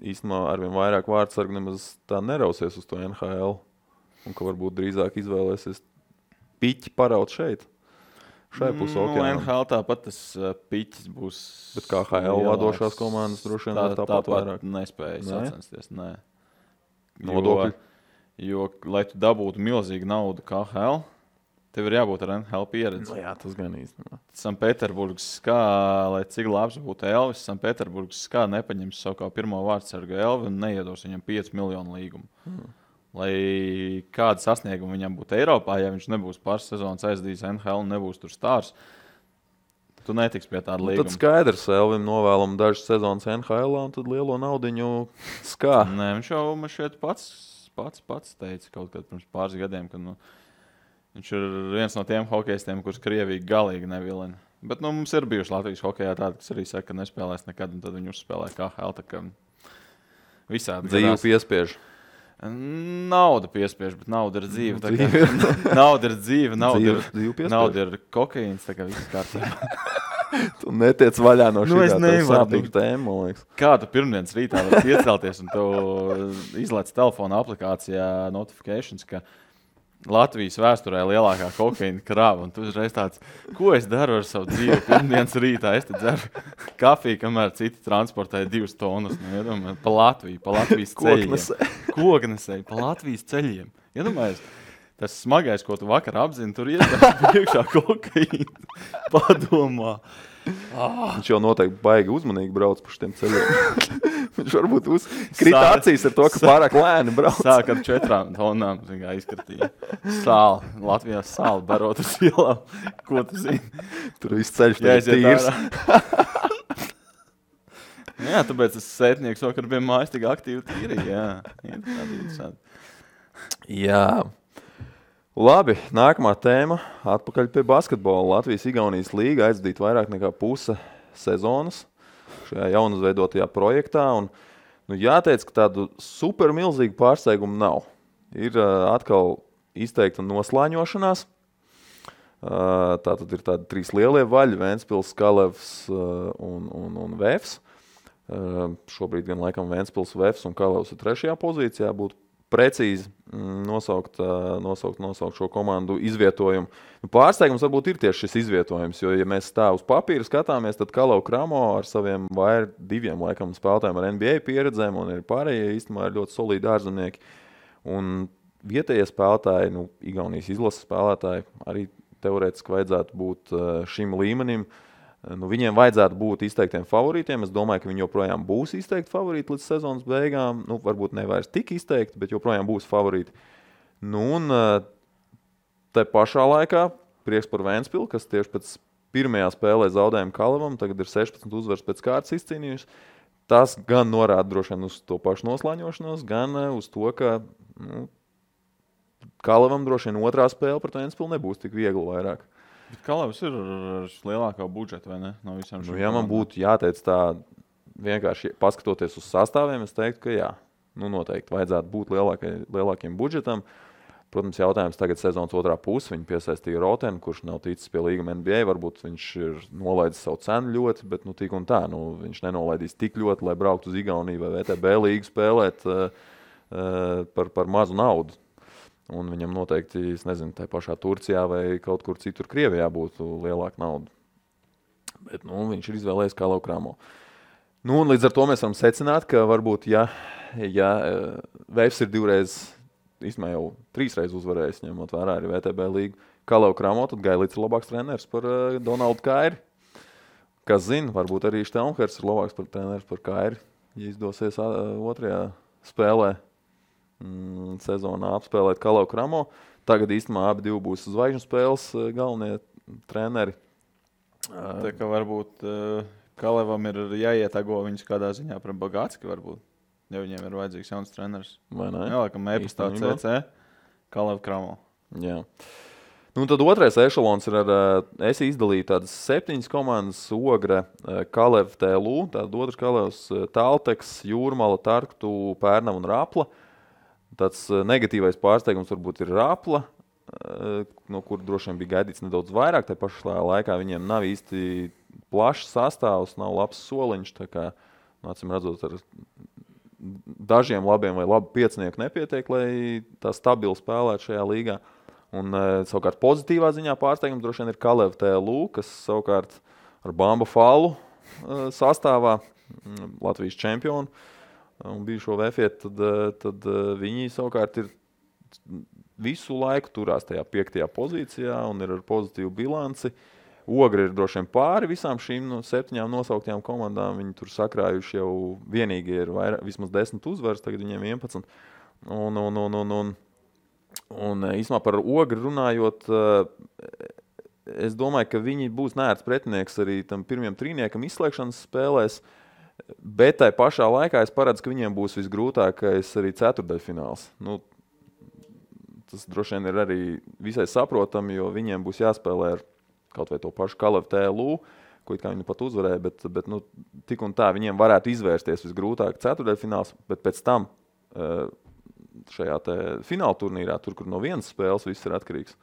īstenībā arvien vairāk vārdsargi nemaz tā nerausies uz to NHL un ka varbūt drīzāk izvēlēsies piķi paraut šeit. Šai pusē okeānam. NHL tāpat tas piķis būs. Bet kā HL vadošās komandas droši vien tāpat vairāk nespēja sacensties. Nē. Nodokļi. Jo, lai tu dabūtu milzīgu naudu kā HL, tev ir jābūt ar NHL pieredzi. Jā, tas gan īstenībā. Sanpēterburgas skā, lai cik labs būtu Elvis, Sanpēterburgas skā nepaņems savu kā pirmo vārdsargu Elvi un neiedos viņam 5 miljonu līgumu. Lai kāda sasnieguma viņam būtu Eiropā, ja viņš nebūs pāris sezonas aizdījis NHL un nebūs tur stārs, tu netiks pie tāda līguma. Tad skaidrs, Elvim novēlam dažas sezonas NHL un tad lielo naudiņu skā. Nē, viņš jau man šeit pats teica kaut kad pirms pāris gadiem, ka viņš ir viens no tiem hokejistiem, kurus Krievija galīgi nevilina. Bet mums ir bijuši Latvijas hokejā tādi, kas arī saka, ka nespēlēs nekad, un tad viņi uzspēlē KHL, tā kā visādi. Dzīvu piespiež. Nauda piespiež, bet nauda ir dzīve. Nauda ir dzīve, nauda ir kokaīns, tā kā viss kārtībā. Tu netiec vaļā no šī sāpīga tēma, man liekas. Kā tu pirmdienas rītā var iecelties un tu izlaic telefona aplikācijā notifications, ka Latvijas vēsturē lielākā kokaīna krāva, un tu uzreiz tāds, ko es daru ar savu dzīvi pirmdienas rītā? Es te dzeru kafiju, kamēr citi transportēja 2 tonnas. Pa Latvijas ceļiem. Koknesēji, pa Latvijas ceļiem. Iedomājies, tas smagais, ko tu vakar apzini, tur iedās priekšā kokaīna. Padomā. Viņš jau noteikti baigi uzmanīgi brauc pa šiem ceļiem. Viņš varbūt krita acīs ar to, ka pārāk lēni brauc. Sāk ar 4 tonām izkratīja. Sāli. Latvijā sāli barot uz ielām. Ko tu zini? Tur viss ceļš tīrs. Jā, tāpēc es sētnieks vakar bija mājas tik aktīvi tīri. Jā. Labi, nākamā tēma. Atpakaļ pie basketbola. Latvijas-Igaunijas līga aizdīt vairāk nekā puse sezonas šajā jaunizveidotajā projektā. Un, jāteic, ka tādu super milzīgu pārsteigumu nav. Ir atkal izteikta noslāņošanās. Tātad ir tādi 3 lielie vaļi, Ventspils, Kalevs un Vēfs. Šobrīd gan laikam Ventspils, Vēfs un Kalevs ir 3. pozīcijā. Būtu precīzi nosaukt šo komandu izvietojumu. Pārsteigums varbūt ir tieši šis izvietojums, jo, ja mēs tā uz papīra skatāmies, tad Kalev Kramo ar saviem 2 laikam spēlētājiem ar NBA pieredzēm un arī pārējie īstenībā ir ļoti solīdi ārzemnieki. Un vietējie spēlētāji, Igaunijas izlases spēlētāji, arī teorētiski vajadzētu būt šim līmenim. Viņiem vajadzētu būt izteiktiem favorītiem. Es domāju, ka viņi joprojām būs izteikti favorīti līdz sezonas beigām. Varbūt ne vairs tik izteikti, bet joprojām būs favorīti. Un te pašā laikā prieks par Ventspilu, kas tieši pēc pirmajā spēlē zaudējumu Kalevam, tagad ir 16 uzvaras pēc kārtas izcīnījusi. Tas gan norāda droši vien uz to pašu noslāņošanos, gan uz to, ka Kalevam droši vien otrā spēle pret Ventspilu nebūs tik viegli vairāk. Bet Kalevs ir ar lielākā budžeta, vai ne? No visām šīm ja man būtu jāteic tā, vienkārši paskatoties uz sastāviem, es teiktu, ka jā, noteikti vajadzētu būt lielākiem budžetam. Protams, jautājums tagad sezonas otrā puse. Viņi piesaistīja Rotenu, kurš nav ticis pie līguma NBA. Varbūt viņš ir nolaidis savu cenu ļoti, bet tik un tā. Viņš nenolaidīs tik ļoti, lai brauktu uz Igauniju vai VTB līgu spēlēt par mazu naudu. Un viņam noteikti, es nezinu, tā pašā Turcijā vai kaut kur citur Krievijā būtu lielāka nauda. Bet viņš ir izvēlējies Kalev Kramo. Un līdz ar to mēs varam secināt, ka varbūt, ja Vēfs ir 2 reizes, īstenībā jau 3 reizes uzvarējis, ņemot vērā arī VTB līgu Kalev Kramo, tad Gailits ir labāks treneris par Donaldu Kairi. Kas zina, varbūt arī Štelmhers ir labāks par treneris par Kairi, ja izdosies otrajā spēlē sezonā apspēlēt Kalev Kramo. Tagad īstenībā abi būs zvaigžņu spēles galvenie treneri. Tā kā varbūt Kalevam ir jāietago viņus kādā ziņā par Bagātski varbūt, ja viņiem ir vajadzīgs jauns treneris. Vai ne? Jā, laikam e-pastā CC, Kalev Kramo. Jā. Tad otrais ešalons ir es izdalīju tādas 7 komandas: Ogre, Kalev, TLU, tātad otrs Kalevs, Talteks, Jūrmala, Tarktu, Pērnava un Rapla. Tāds negatīvais pārsteigums varbūt ir Rapla, no kur droši vien bija gaidīts nedaudz vairāk. Tā pašā laikā viņiem nav īsti plašs sastāvs, nav labs soliņš. Tā kā, acīm redzot, ar dažiem labiem vai labu piecinieku nepietiek, lai tā stabili spēlētu šajā līgā. Un savukārt pozitīvā ziņā pārsteigums droši vien ir Kalev TLU, kas savukārt ar Bamba Fallu sastāvā, Latvijas čempionu, un bijušo Vēfietu, tad viņi savukārt ir visu laiku turās tajā 5. pozīcijā un ir ar pozitīvu bilanci. Ogre ir droši vien pāri visām šīm 7 nosauktajām komandām. Viņi tur sakrājuši jau vienīgi ir vismaz 10 uzvaras, tagad viņiem 11. Un īstenībā par Ogri runājot, es domāju, ka viņi būs neērts pretinieks arī tam pirmajam trīniekam izslēgšanas spēlēs. Bet tai pašā laikā es paredzu, ka viņiem būs visgrūtākais arī ceturdaļfināls. Tas droši vien ir arī visai saprotami, jo viņiem būs jāspēlē ar kaut vai to pašu Kalev TLU, ko it kā viņi pat uzvarēja, bet tik un tā viņiem varētu izvērsties visgrūtāk ceturdaļfināls, bet pēc tam šajā fināla turnīrā, tur, kur no vienas spēles viss ir atkarīgs.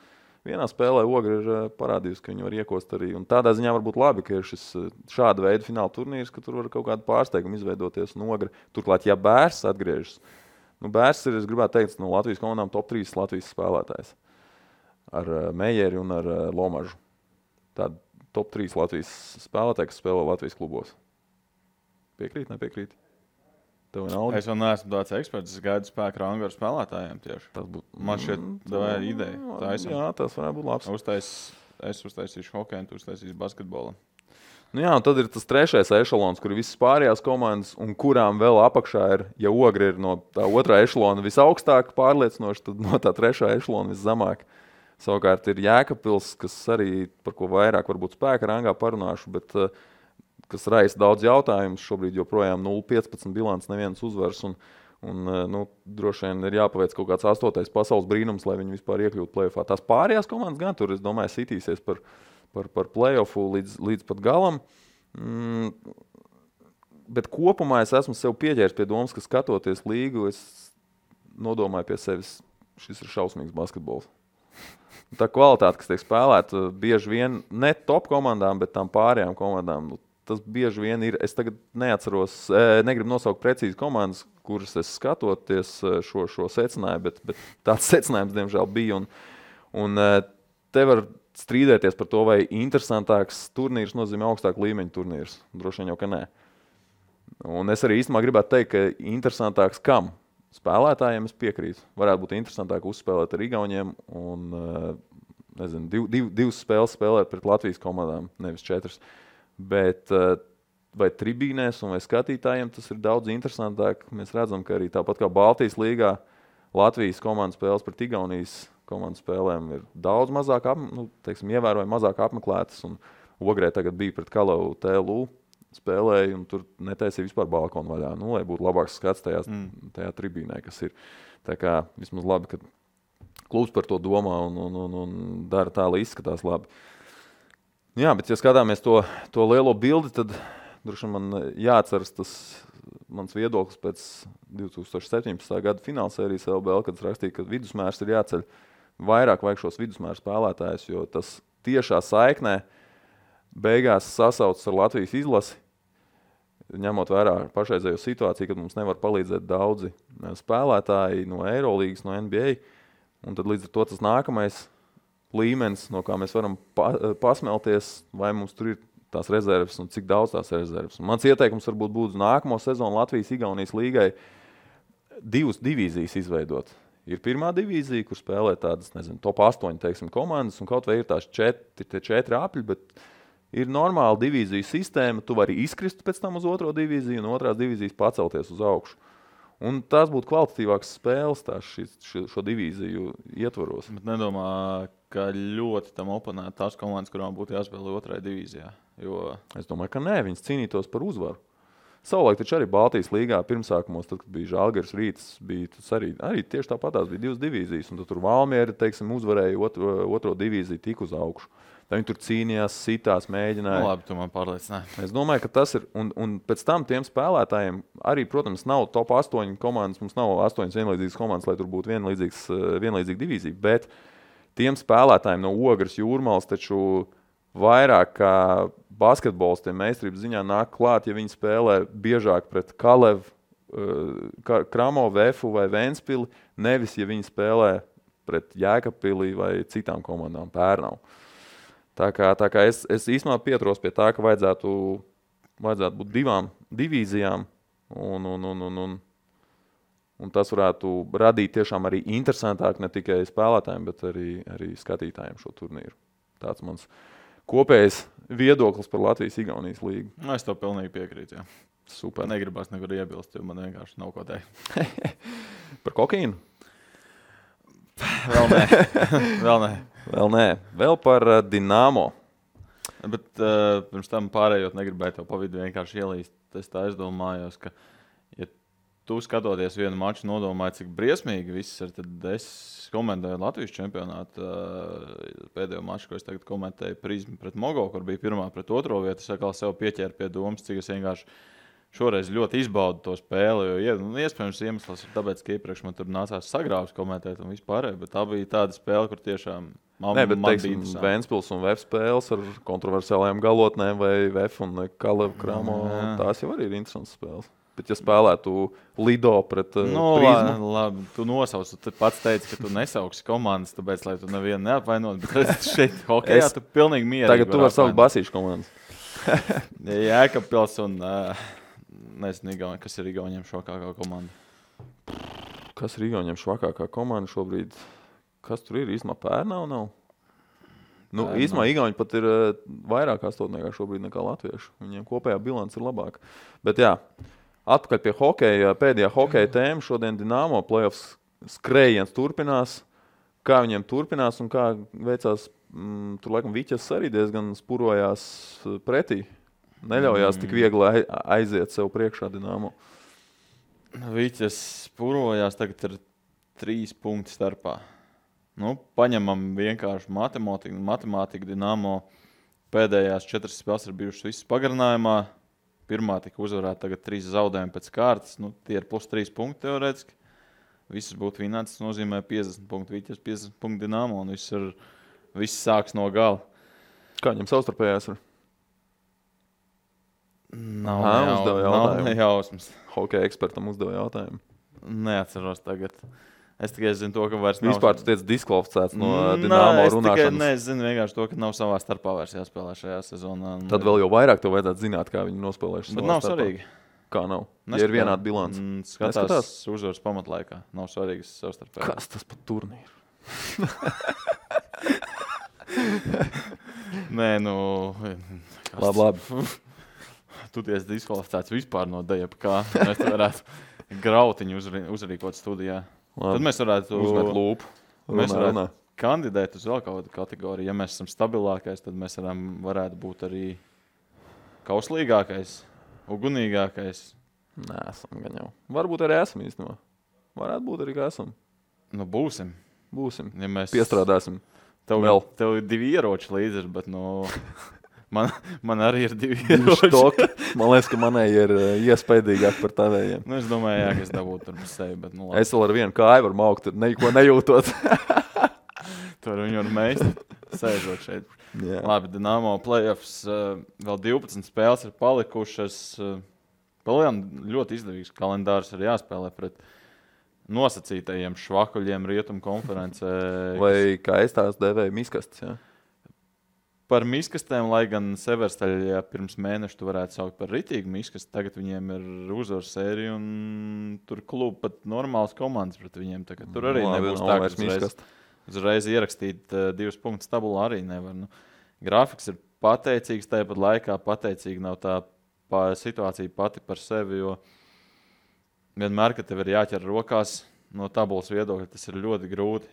Vienā spēlē Ogre ir parādījusi, ka viņi var iekost arī. Un tādā ziņā varbūt labi, ka ir šis šāda veida fināla turnīrs, ka tur var kaut kādu pārsteigumu izveidoties un Ogre. Turklāt, ja Bērs atgriežas, Bērs ir, es gribētu teikt, no Latvijas komandām top 3 Latvijas spēlētājs. Ar Meijeri un ar Lomažu. Tāda top 3 Latvijas spēlētāji, kas spēlē Latvijas klubos. Piekrīt, nepiekrīt? Es vēl neesmu tāds eksperts, es gaidu spēku rangu ar spēlētājiem tieši. Man šeit tā ir ideja. Jā, tas varētu būt labs. Es uztaisīšu hokeju, tu uztaisīsi basketbolu. Un tad ir tas 3. ešalons, kur ir visas pārējās komandas, un kurām vēl apakšā ir, ja Ogre ir no tā 2. ešalona visaugstāk pārliecinoši, tad no tā 3. ešalona viszemāk. Savukārt ir Jēkabpils, kas arī par ko vairāk varbūt spēka rangā parunāšu, bet kas raisa daudz jautājumus. Šobrīd joprojām 0-15 bilants, nevienas uzvaras. Un droši vien ir jāpaveic kaut kāds 8. pasaules brīnums, lai viņi vispār iekļūtu play-offā. Tās pārējās komandas gan tur, es domāju, sitīsies par play-offu līdz pat galam. Bet kopumā es esmu sev pieķēris pie domas, ka skatoties līgu, es nodomāju pie sevis, šis ir šausmīgs basketbols. tā kvalitāte, kas tiek spēlēta, bieži vien ne top komandām, bet tām pārējām komandām. Tas bieži vien ir. Es tagad neatceros, negribu nosaukt precīzi komandas, kuras es skatoties šo secināju, bet tāds secinājums, diemžēl, bija. Un te var strīdēties par to, vai interesantāks turnīrs nozīmē augstāku līmeņu turnīrs. Droši vien jau, ka nē. Un es arī īstenībā gribētu teikt, ka interesantāks kam? Spēlētājiem es piekrītu. Varētu būt interesantāk uzspēlēt ar Igauniem un, nezinu, divas spēles spēlēt pret Latvijas komandām, nevis 4. Bet vai tribīnēs un vai skatītājiem tas ir daudz interesantāk. Mēs redzam, ka arī tāpat kā Baltijas līgā Latvijas komandas spēles pret Igaunijas komandas spēlēm ir daudz mazāk, ievērojami mazāk apmeklētas. Un Ogrē tagad bija pret Kalavu TLU spēlēja, un tur netaisīja vispār balkonu vaļā, lai būtu labāks skats tajā tribīnē, kas ir. Tā kā vismaz labi, ka klubs par to domā un dara tā, lai izskatās labi. Jā, bet ja skatāmies to lielo bildi, tad droši man jāatceras tas mans viedoklis pēc 2017. Gada finālsērijas LBL, kad es rakstīju, ka vidusmērs ir jāceļ. Vairāk vajag šos vidusmēru spēlētājus, jo tas tiešā saiknē beigās sasaucas ar Latvijas izlasi, ņemot vērā pašreizējo situāciju, kad mums nevar palīdzēt daudzi spēlētāji no Eirolīgas, no NBA, un tad līdz ar to tas nākamais līmenis, no kā mēs varam pasmelties, vai mums tur ir tās rezerves un cik daudz tās rezerves. Un mans ieteikums varbūt būtu nākamo sezonu Latvijas-Igaunijas līgai 2 divīzijas izveidot. Ir pirmā divīzija, kur spēlē tādas, nezinu, top 8, teiksim, komandas, un kaut vai ir tās 4 apļi, bet ir normāla divīziju sistēma, tu vari izkrist pēc tam uz otro divīziju un otrās divīzijas pacelties uz augšu. Un tās būtu kvalitatīvākas spēles šo divīziju ietvaros. Bet nedomā, ka ļoti tam oponētu tās komandas, kurām būtu jāspēlē otrajā divīzijā? Jo... Es domāju, ka nē, viņas cīnītos par uzvaru. Savulaik taču arī Baltijas līgā pirmsākumos, tad, kad bija Žalgiris Rīts, bija tas arī tieši tāpatās bija 2 divīzijas, un tad tur Valmiera, teiksim, uzvarēja otro divīziju tik uz augšu. Tā viņi tur cīnījās, sitās, mēģināja. Nu, labi, tu man pārliecināji. Es domāju, ka tas ir, un pēc tam tiem spēlētājiem arī, protams, nav top 8 komandas, mums nav 8 vienlīdzīgas komandas, lai tur būtu vienlīdzīga divīzija, bet tiem spēlētājiem no Ogres, Jūrmals taču vairāk kā basketbolistiem meistarības ziņā nāk klāt, ja viņi spēlē biežāk pret Kalevu, Kramo, Vefu vai Ventspili, nevis, ja viņi spēlē pret Jēkabpili vai citām komandām, Pērnavu. Tā kā es īstenībā pieturos pie tā, ka vajadzētu būt 2 divīzijām, un tas varētu radīt tiešām arī interesantāk ne tikai spēlētājiem, bet arī skatītājiem šo turnīru. Tāds mans kopējais viedoklis par Latvijas-Igaunijas līgu. Es to pilnīgi piekrītu, jā. Super. Negribās nekur iebilst, jo man vienkārši nav ko teikt. Par kokaīnu? Vēl nē. Vēl nē. Vēl par Dinamo. Bet pirms tam pārējot negribēju tev pa vidu vienkārši ielīst. Es tā aizdomājos, ka ja tu skatoties vienu maču nodomāji, cik briesmīgi viss ir, tad es komentēju Latvijas čempionātu pēdējo maču, ko es tagad komentēju Prizmu pret Mogo, kur bija 1. pret 2. vietu. Es atkal sev pieķēru pie domas, cik es vienkārši šoreiz ļoti izbaudu to spēli, jo iespējams iemesls ir tāpēc, ka iepriekš man tur nācās sagrāvs komentēt un vispārēj, bet tā bija tāda spēle, kur tiešām man bija interesanti. Ventspils un VF spēles ar kontroversiālajām galotnēm vai VF un Kalevu Kramo, tās jau arī ir interesantas spēles. Bet ja spēlētu Lido pret Prizmu... Labi, tu nosauc, tu pats teici, ka tu nesauksi komandas, tāpēc, lai tu nevienu neapvainot, bet redz, šeit hokejā tu pilnīgi mierīgi. Tagad tu vari saukt Basīšu komandas. Jēkabpils un... Nezinu, kas ir Igauniem švakākā komanda. Kas ir Igauniem švakākā komanda šobrīd? Kas tur ir? Īstumā Pērnava nav? Īstumā Igauni pat ir vairāk astotniekā šobrīd nekā latviešu. Viņiem kopējā bilance ir labāka. Bet jā, atpakaļ pie hokeja. Pēdējā hokeja tēma šodien Dinamo playoffs skrējiens turpinās. Kā viņiem turpinās un kā veicās, tur laikam Viķas arī diezgan spurojās pretī. Neļaujās tik viegli aiziet sev priekšā Dinamo. Viķas spurojās, tagad ir 3 punkti starpā. Paņemam vienkārši matemātiku Dinamo. Pēdējās 4 spēles ir bijušas visas pagarinājumā. Pirmā tika uzvarēta, tagad 3 zaudējumi pēc kārtas. Tie ir plus 3 punkti teorētiski. Visas būtu vinētas, tas nozīmē 50 punktu Viķas, 50 punktu Dinamo. Un viss ir viss sāks no gala. Kā viņam savstarpējās ir? Nav nejausmas. Hokeja ekspertam uzdeva jautājumu. Neatceros tagad. Es tikai zinu to, ka vairs nav... Vispār tu tiec diskvalificēts no Dinamo runāšanas. Nē, es zinu vienkārši to, ka nav savā starpā vairs jāspēlē šajā sezonā. Tad vēl jau vairāk tev vajadzētu zināt, kā viņi nospēlējuši savā Bet nav starpā. svarīgi. Kā nav? Ja ir vienāda bilance. Skatās uzvaras pamatlaikā. Nav svarīgas savstarpēji. Kas tas par turnīru? Nē, Labi. Tu tiesi diskvalificēts vispār no dejapa kā. Mēs te varētu grautiņu uzrīkot studijā. Labi. Tad mēs varētu uzmet lūpu. Mēs varētu kandidēt uz vēl kādu kategoriju. Ja mēs esam stabilākais, tad mēs varētu būt arī kauslīgākais, ugunīgākais. Nē, esam gan jau. Varbūt arī esam īstenībā. Varētu būt arī, ka esam. Būsim. Ja mēs piestrādāsim. Tev ir 2 ieroči līdzi, bet man arī ir 2 ieroči. Man liekas, ka manai ir iespaidīgāk par tavējiem. Es domāju, ka es dabūtu tur sevi, bet labi. Es vēl ar vienu kāju varu maukt, neko nejūtot. Tur viņu var meist, sēžot šeit. Jā. Labi, Dinamo playoffs, vēl 12 spēles ir palikušas. Palējām ļoti izdevīgs kalendārs ir jāspēlē pret nosacītajiem švakuļiem Rietumu konferencē. Vai kā es tās devēju miskastes, jā? Par miskastēm, lai gan Severstaļā pirms mēneša tu varētu saukt par ritīgu miskastu, tagad viņiem ir uzvaru sērija un tur klubu pat normāls komandas pret viņiem. Tur arī nebūs tā, ka uzreiz ierakstīt 2 punktus tabulā arī nevar. Grafiks ir pateicīgs, tāpat laikā pateicīgi nav tā situācija pati par sevi, jo vienmēr, kad tev ir jāķer rokās no tabulas viedokļa, tas ir ļoti grūti.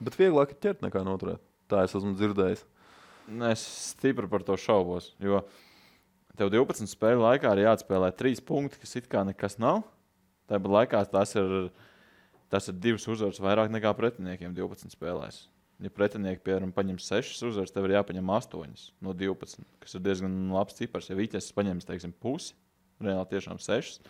Bet vieglāk ir ķert nekā noturēt. Tā es esmu dzirdējis. Es stipri par to šaubos, jo tev 12 spēļu laikā ir jāatspēlē 3 punkti, kas it kā nekas nav. Tāpat laikā tas ir 2 uzvaras vairāk nekā pretiniekiem 12 spēlēs. Ja pretinieki, piemēram, paņem 6 uzvaras, tev ir jāpaņem 8 no 12, kas ir diezgan labs cipars. Ja Viķes paņems, teiksim, pusi, reāli tiešām 6,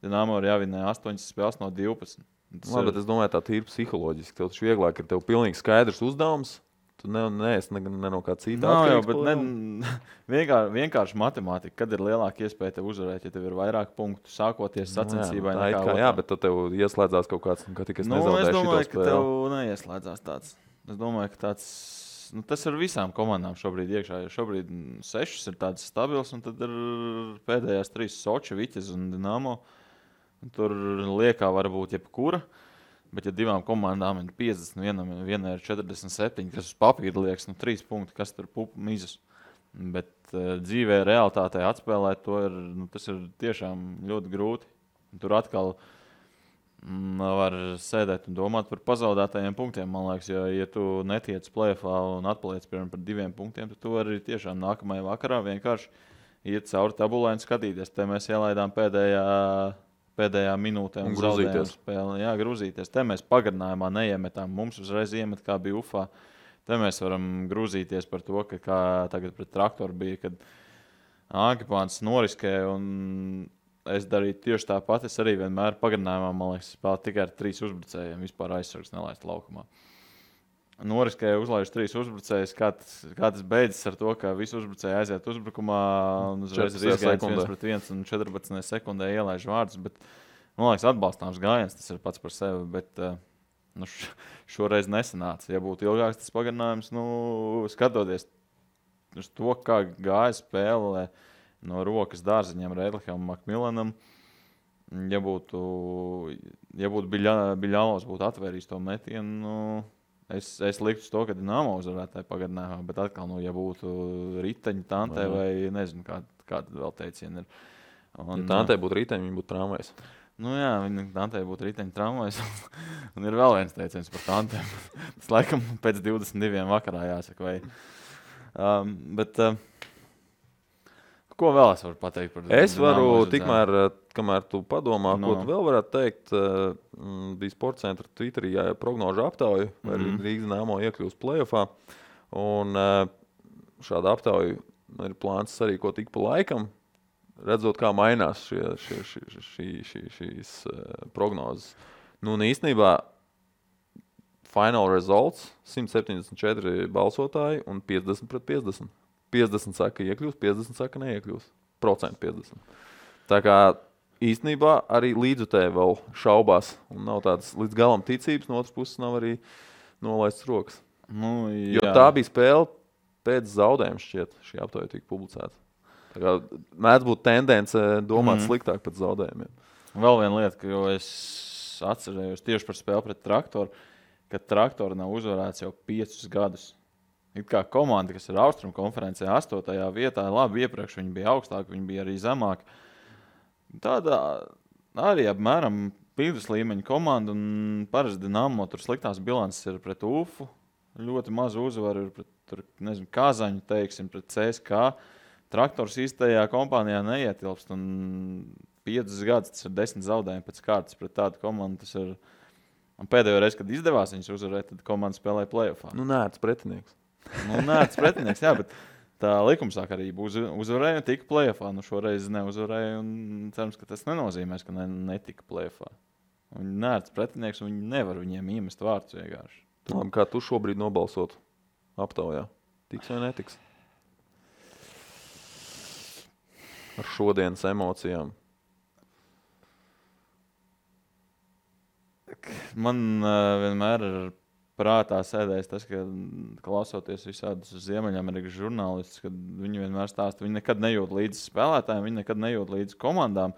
Dinamo ir jāvinē 8 spēles no 12. Labi, bet es domāju, tā tīri psiholoģiski. Tev taču vieglāk ir tev pilnīgi skaidrs uzdevums. Tu neesi ne no kā cita atkarīgs. Vienkārši matemātika. Kad ir lielāka iespēja tev uzvarēt, ja tev ir vairāk punktu sākoties sacensībai nekā otrā? Jā, bet tad tev ieslēdzās kaut kāds, ka tikai es nezaudēju šito spēli. Es domāju, ka tev neieslēdzās tāds. Es domāju, ka tāds, tas ir visām komandām šobrīd iekšā. Šobrīd 6 ir tāds stabils, un tad ir pēdējās 3 Soči, Viķes un Dinamo. Tur liekā varbūt jebkura. Bet, ja 2 komandām ir 50, vienai ir 47, kas uz papīra liekas, 3 punkti, kas tur mizas. Bet dzīvē, realitātē atspēlēt to tas ir tiešām ļoti grūti. Tur atkal var sēdēt un domāt par pazaudētajiem punktiem, man liekas, ja tu netiec play-offā un atpaliec piemēram par 2 punktiem, tad tu arī tiešām nākamajā vakarā vienkārši iet cauri tabulai un skatīties. Te mēs ielaidām pēdējā minūtē un zaudējām spēli. Jā, grūzīties. Te mēs pagarinājumā neiemetām. Mums uzreiz iemet, kā bija Ufā. Te mēs varam grūzīties par to, ka kā tagad pret Traktoru bija, kad Ankipāns noriskē un es darīju tieši tāpat. Es arī vienmēr pagarinājumā, man liekas, spēlēju tikai ar 3 uzbrucējiem. Vispār aizsargs nelaist laukumā. Noriskēja uzlaiž 3 uzbrucējus. Kā tas beidzas ar to, ka visi uzbrucēji aiziet uzbrukumā un uzreiz ir izgājiens 1-1 un 14 sekundē ielaiž vārdus. Bet, man liekas, atbalstāms gājiens, tas ir pats par sevi, bet šoreiz nesanāca. Ja būtu ilgāks tas pagarinājums, skatoties uz to, kā gāja spēle no rokas dārziņiem Reidlikam un Makmilanam, ja būtu Biļālovs būtu atvērījis to metienu, es liktu to, ka Dinamo uzvarētāji pagarinājumā, bet atkal, ja būtu riteņi Tantē vai nezinu, kāda vēl teiciena ir. Ja Tantē būtu riteņi, viņi būtu tramvajs. Jā, Tantē būtu riteņi tramvajs. Un ir vēl viens teiciens par Tantēm. Tas laikam pēc 22 vakarā jāsaka. Bet ko vēl es varu pateikt par Dinamo? Es varu tikmēr, kamēr tu padomā, ko tu vēl varētu teikt, bija Sports centra Twitterī prognožu aptauju, vai Rīgas Dinamo iekļūst play-offā. Un šāda aptauja ir plāns arī ko tik pa laikam, redzot, kā mainās šīs prognozes. Un īstenībā final results 174 balsotāji un 50-50. 50 saka iekļūs, 50 saka neiekļūs. Procentu 50. Tā kā īstenībā arī līdzutēji vēl šaubās un nav tādas līdz galam ticības, no otras puses nav arī nolaistas rokas. Nu, jā. Jo tā bija spēle pēc zaudējuma šķiet, šī aptauja tika publicēta. Tā kā mēdz būt tendence domāt sliktāk pēc zaudējumiem. Vēl viena lieta, jo es atcerējos tieši par spēli pret Traktoru, ka Traktori nav uzvarēts jau 5 gadus. It kā komanda, kas ir Austrumu konferencē 8. vietā, labi iepriekš viņi bija augstāk, viņi bija arī zemāk. Tāda arī apmēram vidus līmeņa komanda un parasti Dinamo tur sliktās bilances ir pret UFU. Ļoti maz uzvaru ir pret, Kazaņu, teiksim, pret CSK. Traktors īstajā kompānijā neietilpst un 5 gadus tas ir 10 zaudējumi pēc kārtas pret tādu komandu. Tas ir un pēdējo reizi, kad izdevās viņus uzvarēt, tad komanda spēlēja play-offā. Nērts pretinieks. Nērts pretinieks, jā, bet tā likumsakarība uzvarēja un tika play-offā. Šoreiz neuzvarēja un cerams, ka tas nenozīmēs, ka netika play-offā. Viņi nērts pretinieks un viņi nevar viņiem iemest vārdus vienkārši. Labi, kā tu šobrīd nobalsot aptaujā? Tiks vai netiks? Ar šodienas emocijām. Man vienmēr ir prātā sēdējis tas, ka klausoties visādus Ziemeļamerikas žurnālistus, kad viņi vienmēr stāsta, viņi nekad nejūt līdzi spēlētājiem, viņi nekad nejūt līdzi komandām.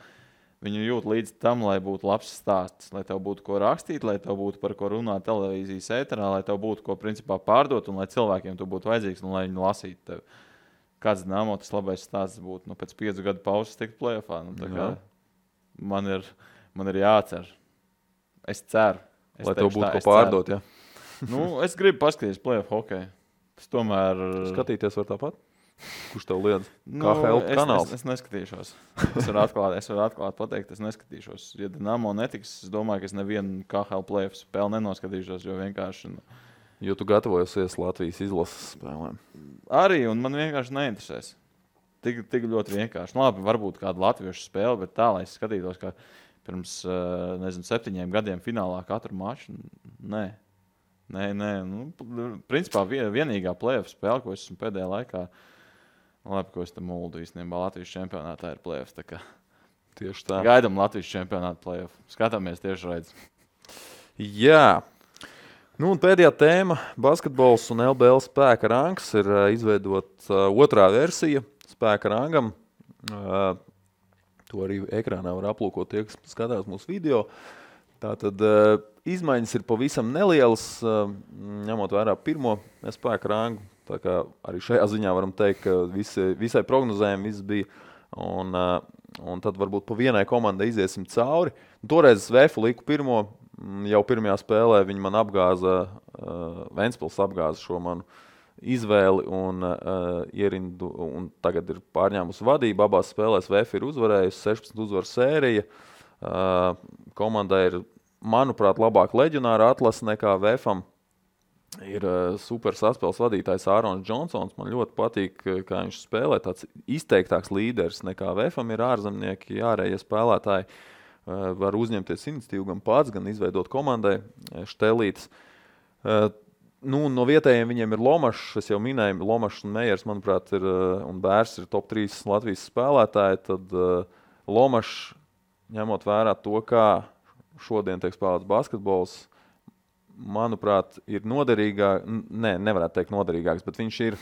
Viņi jūt līdzi tam, lai būtu labs stāsts, lai tev būtu ko rakstīt, lai tev būtu par ko runāt televīzijas ēterā, lai tev būtu ko principā pārdot un lai cilvēkiem tu būtu vajadzīgs un lai viņi lasītu tevi. Kāds Dinamo tas labais stāsts būtu? Pēc 5 gadu pauzes tikt play-offā. Man ir jācer. Es ceru. Lai tev būtu ko pārdot, jā. Es gribu paskatīties play-off hokeju. Tas tomēr... Skatīties var tāpat? Kurš tev liedz? KHL kanāls? Es neskatīšos. Es varu atklāt pateikt, es neskatīšos. Ja Dinamo netiks, es domāju, ka es nevienu KHL play-off spēli nenoskatīšos, jo vienkārši... Jo tu gatavojosies Latvijas izlases spēlēm. Arī, un man vienkārši neinteresēs. Tik ļoti vienkārši. Labi, varbūt kādu latviešu spēli, bet tā, lai es skatītos, kā pirms, 7 gadiem finālā katru maču. Nē. Principā vienīgā play-off spēle, ko esmu pēdējā laikā, labi, ko es te muldu īstenībā Latvijas čempionātā ir play-off. Tieši tā. Gaidam Latvijas čempionātu play-off. Skatāmies tieši redz. Jā. Un pēdējā tēma – basketbols un LBL spēka rangs ir izveidot otrā versija spēka rangam. To arī ekrānā var aplūkot tie, kas skatās mūsu video. Tātad izmaiņas ir pavisam nelielas, ņemot vērā pirmo spēka rangu. Tā kā arī šajā ziņā varam teikt, ka visai prognozējumi viss bija. Un tad varbūt pa vienai komandai iziesim cauri. Toreiz Vēfu liku pirmo. Jau pirmajā spēlē viņi man apgāza, Ventspils apgāza šo manu izvēli un ierindu, un tagad ir pārņēmusi vadību. Abās spēlēs VF ir uzvarējusi, 16 uzvaru sērija. Komandai ir, manuprāt, labāk leģionāra atlase nekā VFam. Ir super saspēles vadītājs Ārons Džonsons. Man ļoti patīk, kā viņš spēlē. Tāds izteiktāks līderis nekā VFam ir ārzemnieki, ārējie spēlētāji. Var uzņemties iniciatīvu gan pats, gan izveidot komandai Štelītes. No vietējiem viņiem ir Lomašs, es jau minēju, Lomašs un Mejers, manuprāt, un Bērs ir top 3 Latvijas spēlētāji. Tad Lomašs, ņemot vērā to, kā šodien tiek spēlēts basketbols, manuprāt, ir noderīgāk, nevarētu teikt noderīgāks, bet viņš ir,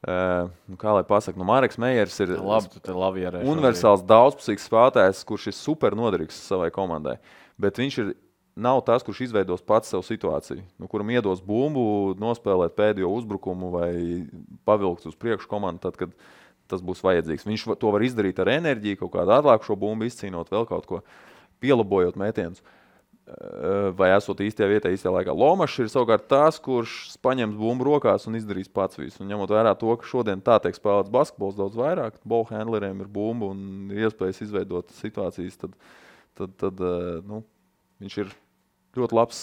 kā lai pasaka, Mareks Mejers ir universāls daudzpusīgs spēlētājs, kurš ir super noderīgs savai komandai. Bet viņš nav tas, kurš izveidos pats savu situāciju, kuram iedos bumbu, nospēlēt pēdējo uzbrukumu vai pavilkt uz priekšu komandu, tad, kad tas būs vajadzīgs. Viņš to var izdarīt ar enerģiju, kaut kādu atlākušo bumbu izcīnot, vēl kaut ko pielabojot mētienus. Vai esot īstajā vietā, īstajā laikā. Lomašs ir savukārt tās, kurš paņems bumbu rokās un izdarīs pats visu. Un ņemot vērā to, ka šodien tā tiek spēlēts basketbols daudz vairāk, ballhandleriem ir bumba un iespējas izveidot situācijas, tad viņš ir ļoti labs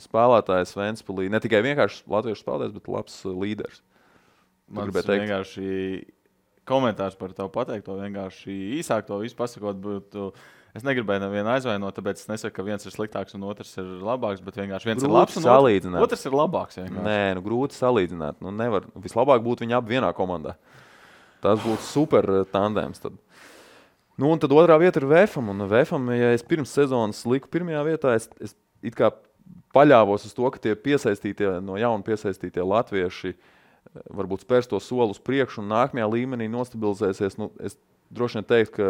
spēlētājs Ventspilī. Ne tikai vienkārši latviešu spēlētājs, bet labs līderis. Man vienkārši komentārs par tavu pateikto, vienkārši īsāk to visu pasakot, būtu Es negribēju nevienu aizvainot, tāpēc es nesaku, ka viens ir sliktāks un otrs ir labāks, bet vienkārši viens grūti ir labs un otrs ir labāks. Vienkārši. Nē, grūti salīdzināt. Nevar. Vislabāk būtu viņi abi vienā komandā. Tas būtu super tandēms. Tad. Un tad otrā vieta ir VFam. Un VFam, ja es pirms sezonas liku pirmajā vietā, es it kā paļāvos uz to, ka tie no jauna piesaistītie latvieši varbūt spērs to soli uz priekšu un nākamajā līmenī nostabilizēsies. Es droši vien teiktu, ka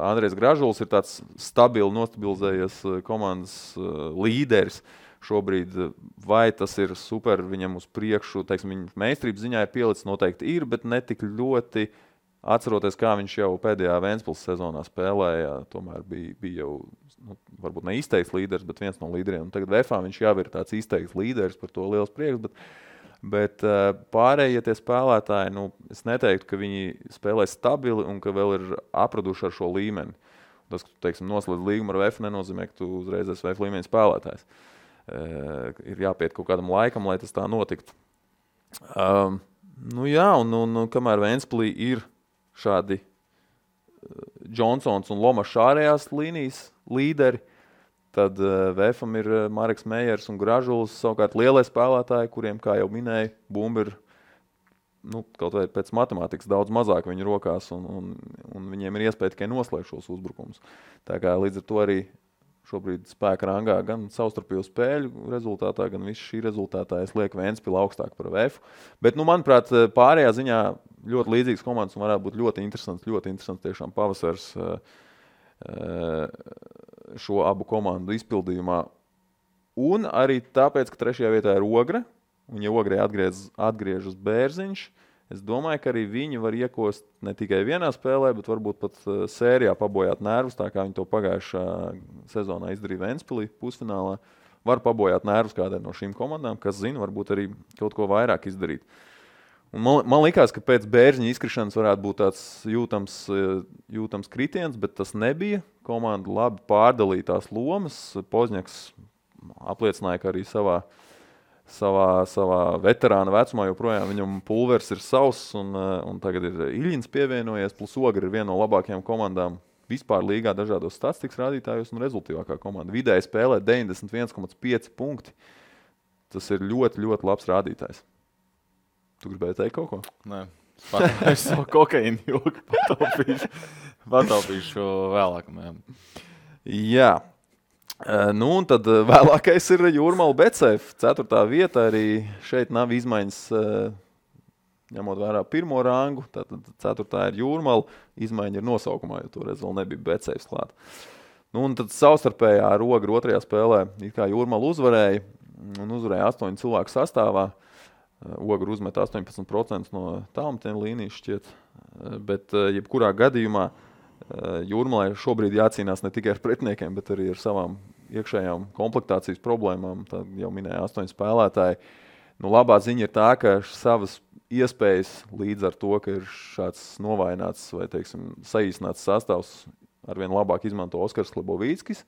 Andrejs Gražuls ir tāds stabili nostabilizējies komandas līderis šobrīd. Vai tas ir super viņam uz priekšu, teiksim, viņa meistarības ziņā ir pielicis, noteikti ir, bet ne tik ļoti atceroties, kā viņš jau pēdējā Ventspils sezonā spēlēja. Tomēr bija jau, varbūt ne izteikts līderis, bet viens no līderiem. Un tagad VFā viņš jau ir tāds izteikts līderis, par to liels prieks. Bet pārējie tie spēlētāji, es neteiktu, ka viņi spēlē stabili un ka vēl ir apraduši ar šo līmeni. Tas, ka tu, teiksim, noslēdz līgumu ar VF, nenozīmē, ka tu uzreiz esi VF līmeņa spēlētājs. Ir jāpiet kaut kādam laikam, lai tas tā notiktu. Kamēr Ventspilī ir šādi Johnsons un Lomašs ārējās līnijas līderi, tad VFam ir Mareks Meijers un Gražuls, savukārt lielie spēlētāji, kuriem, kā jau minēju, bumba ir kaut vai pēc matemātikas daudz mazāk viņu rokās, un viņiem ir iespēja tikai noslēgt šos uzbrukumus. Tā kā līdz ar to arī šobrīd spēka rangā gan savstarpēju spēļu rezultātā, gan visu šī rezultātā es lieku Ventspilu augstāk par VF. Bet, manuprāt, pārējā ziņā ļoti līdzīgas komandas un varētu būt ļoti interesants tiešām pavasars šo abu komandu izpildījumā. Un arī tāpēc, ka trešajā vietā ir Ogre, un ja Ogrei atgriežas Bērziņš, es domāju, ka arī viņi var iekost ne tikai vienā spēlē, bet varbūt pat sērijā pabojāt nervus, tā kā viņi to pagājušā sezonā izdarīja Ventspilī pusfinālā. Var pabojāt nervus kādai no šīm komandām, kas zina, varbūt arī kaut ko vairāk izdarīt. Un man likās, ka pēc Bērziņa izkrišanas varētu būt tāds jūtams kritiens, bet tas nebija. Komanda labi pārdalīja tās lomas. Pozņaks apliecināja, ka arī savā veterāna vecumā joprojām viņam pulvers ir savs, un tagad ir Iļins pievienojies, plus Ogre ir viena no labākajām komandām vispār līgā dažādos statistikas rādītājos un rezultīvākā komanda. Vidēji spēlē 91,5 punkti. Tas ir ļoti, ļoti labs rādītājs. Tu gribēji teikt kaut ko? Nē, es savu kokaīnu joku pataupīšu vēlāk. Jā. Un tad vēlākais ir Jūrmala Betsafe. 4. vieta arī šeit nav izmaiņas, ņemot vērā pirmo rangu. Tātad 4. ir Jūrmala. Izmaiņa ir nosaukumā, jo toreiz vēl nebija Betsafe klāt. Un tad savstarpējā ar Ogru 2. spēlē it kā Jūrmala uzvarēja. Un uzvarēja 8 cilvēku sastāvā. Ogre uzmet 18% no tālmetiena līnijas šķiet, bet jebkurā gadījumā Jūrmalai šobrīd jācīnās ne tikai ar pretiniekiem, bet arī ar savām iekšējām komplektācijas problēmām. Tā jau minēja 8 spēlētāji. Labā ziņa ir tā, ka savas iespējas līdz ar to, ka ir šāds novājināts vai, teiksim, saīsināts sastāvs arvien labāk izmanto Oskars Klebovīckis.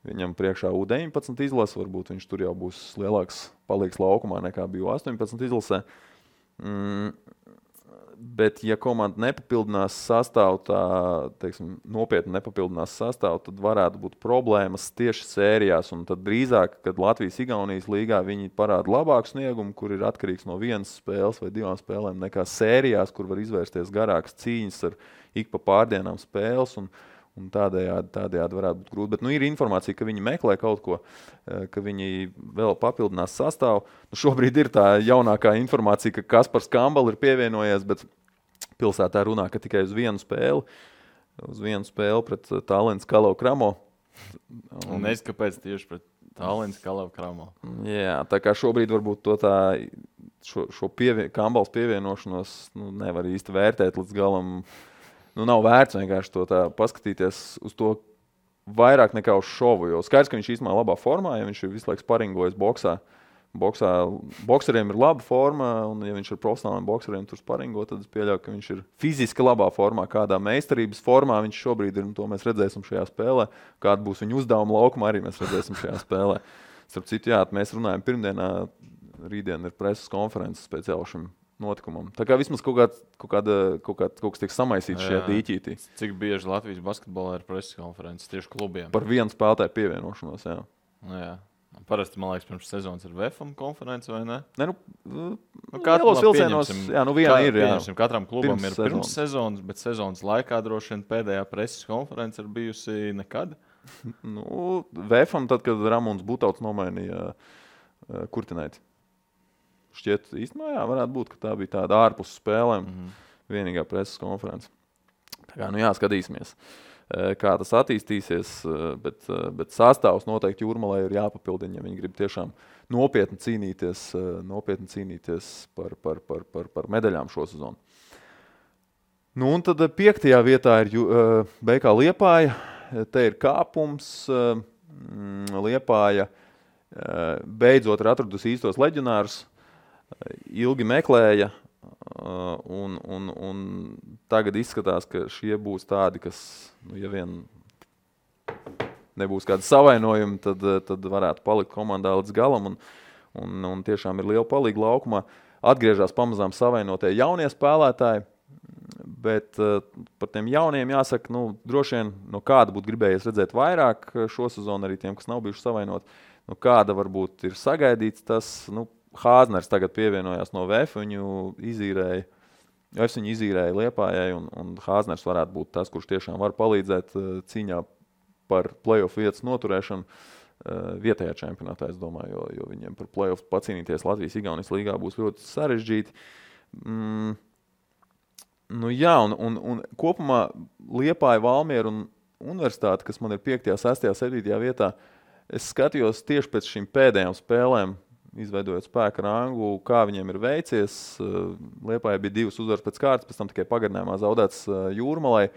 Viņam priekšā U19 izlase, varbūt viņš tur jau būs lielāks paliks laukumā nekā bija U18 izlasē. Bet, ja komanda nepapildinās sastāvu, tā, teiksim, nopietni nepapildinās sastāvu, tad varētu būt problēmas tieši sērijās. Un tad drīzāk, kad Latvijas-Igaunijas līgā viņi parāda labāku sniegumu, kur ir atkarīgs no vienas spēles vai 2 spēlēm, nekā sērijās, kur var izvērsties garākas cīņas ar ik pa pārdienām spēles. Un tādējādi varētu būt grūti. Bet ir informācija, ka viņi meklē kaut ko, ka viņi vēl papildinās sastāvu. Šobrīd ir tā jaunākā informācija, ka Kaspars Kambal ir pievienojies, bet pilsētā runā, ka tikai uz vienu spēli pret Tallinas Kalau Kramo. Un es kāpēc tieši pret Tallinas Kalau Kramo? Jā, tā kā šobrīd varbūt šo Kambals pievienošanos nevar īsti vērtēt līdz galam. Nav vērts vienkārši to tā paskatīties uz to vairāk nekā uz šovu, jo skaidrs, ka viņš īstenībā labā formā, ja viņš ir visu laiku sparingojas boksā. Bokseriem ir laba forma, un ja viņš ir profesionāliem bokseriem tur sparingo, tad es pieļauju, ka viņš ir fiziski labā formā, kādā meistarības formā viņš šobrīd ir, un to mēs redzēsim šajā spēlē. Kāda būs viņa uzdevuma laukuma, arī mēs redzēsim šajā spēlē. Starp citu, jā, mēs runājam pirmdienā, rītdien ir preses konferences speciāli šim notikumam. Tā kā vismaz kaut kas tiek samaisīts šajā dīķītī. Cik bieži Latvijas basketbolā ir preses konferences tieši klubiem? Par vienu spēlētāju pievienošanos, jā. Jā. Parasti, man liekas, pirms sezonas ir VFM konference, vai ne? Ne, Lielos vilcienos, jā, viena ir, jā. Katram klubam ir pirms sezonas, bet sezonas laikā droši vien pēdējā preses konference ir bijusi nekad. VFM tad, kad Ramons Butauts nomainīja Kurtinaiti. Šķiet, īstenībā, jā, varētu būt, ka tā bija tāda ārpus spēlēm vienīgā preses konference. Tā kā, skatīsimies. Kā tas attīstīsies, bet sastāvs noteikti Jūrmalai ir jāpapildina, ja viņi grib tiešām nopietni cīnīties par medaļām šo sezonu. Un tad 5. vietā ir BK Liepāja. Te ir kāpums. Liepāja beidzot ir atradusi īstos leģionārus. Ilgi meklēja. Un tagad izskatās, ka šie būs tādi, kas, ja vien nebūs kādi savainojumi, tad varētu palikt komandā līdz galam un tiešām ir liela palīga laukumā. Atgriežas pamazām savainotie jaunie spēlētāji, bet par tiem jauniem jāsaka, droši vien no kāda būtu gribējies redzēt vairāk šo sezonu arī tiem, kas nav bijuši savainot. Kāda varbūt ir sagaidīts tas, Hāzners tagad pievienojās no VF, viņu izīrēja Liepājai, un Hāzners varētu būt tas, kurš tiešām var palīdzēt cīņā par playoff vietas noturēšanu vietējā čempionātā, es domāju, jo viņiem par playoff pacīnīties Latvijas-Igaunijas līgā būs ļoti sarežģīti. Un kopumā Liepāja, Valmiera un Universitāte, kas man ir 5., 6., 7. vietā, es skatījos tieši pēc šīm pēdējām spēlēm, izveidojot spēka rangu, kā viņiem ir veicies. Liepājai bija 2 uzvaras pēc kārtas, pēc tam tikai pagarinājumā zaudēts Jūrmalai.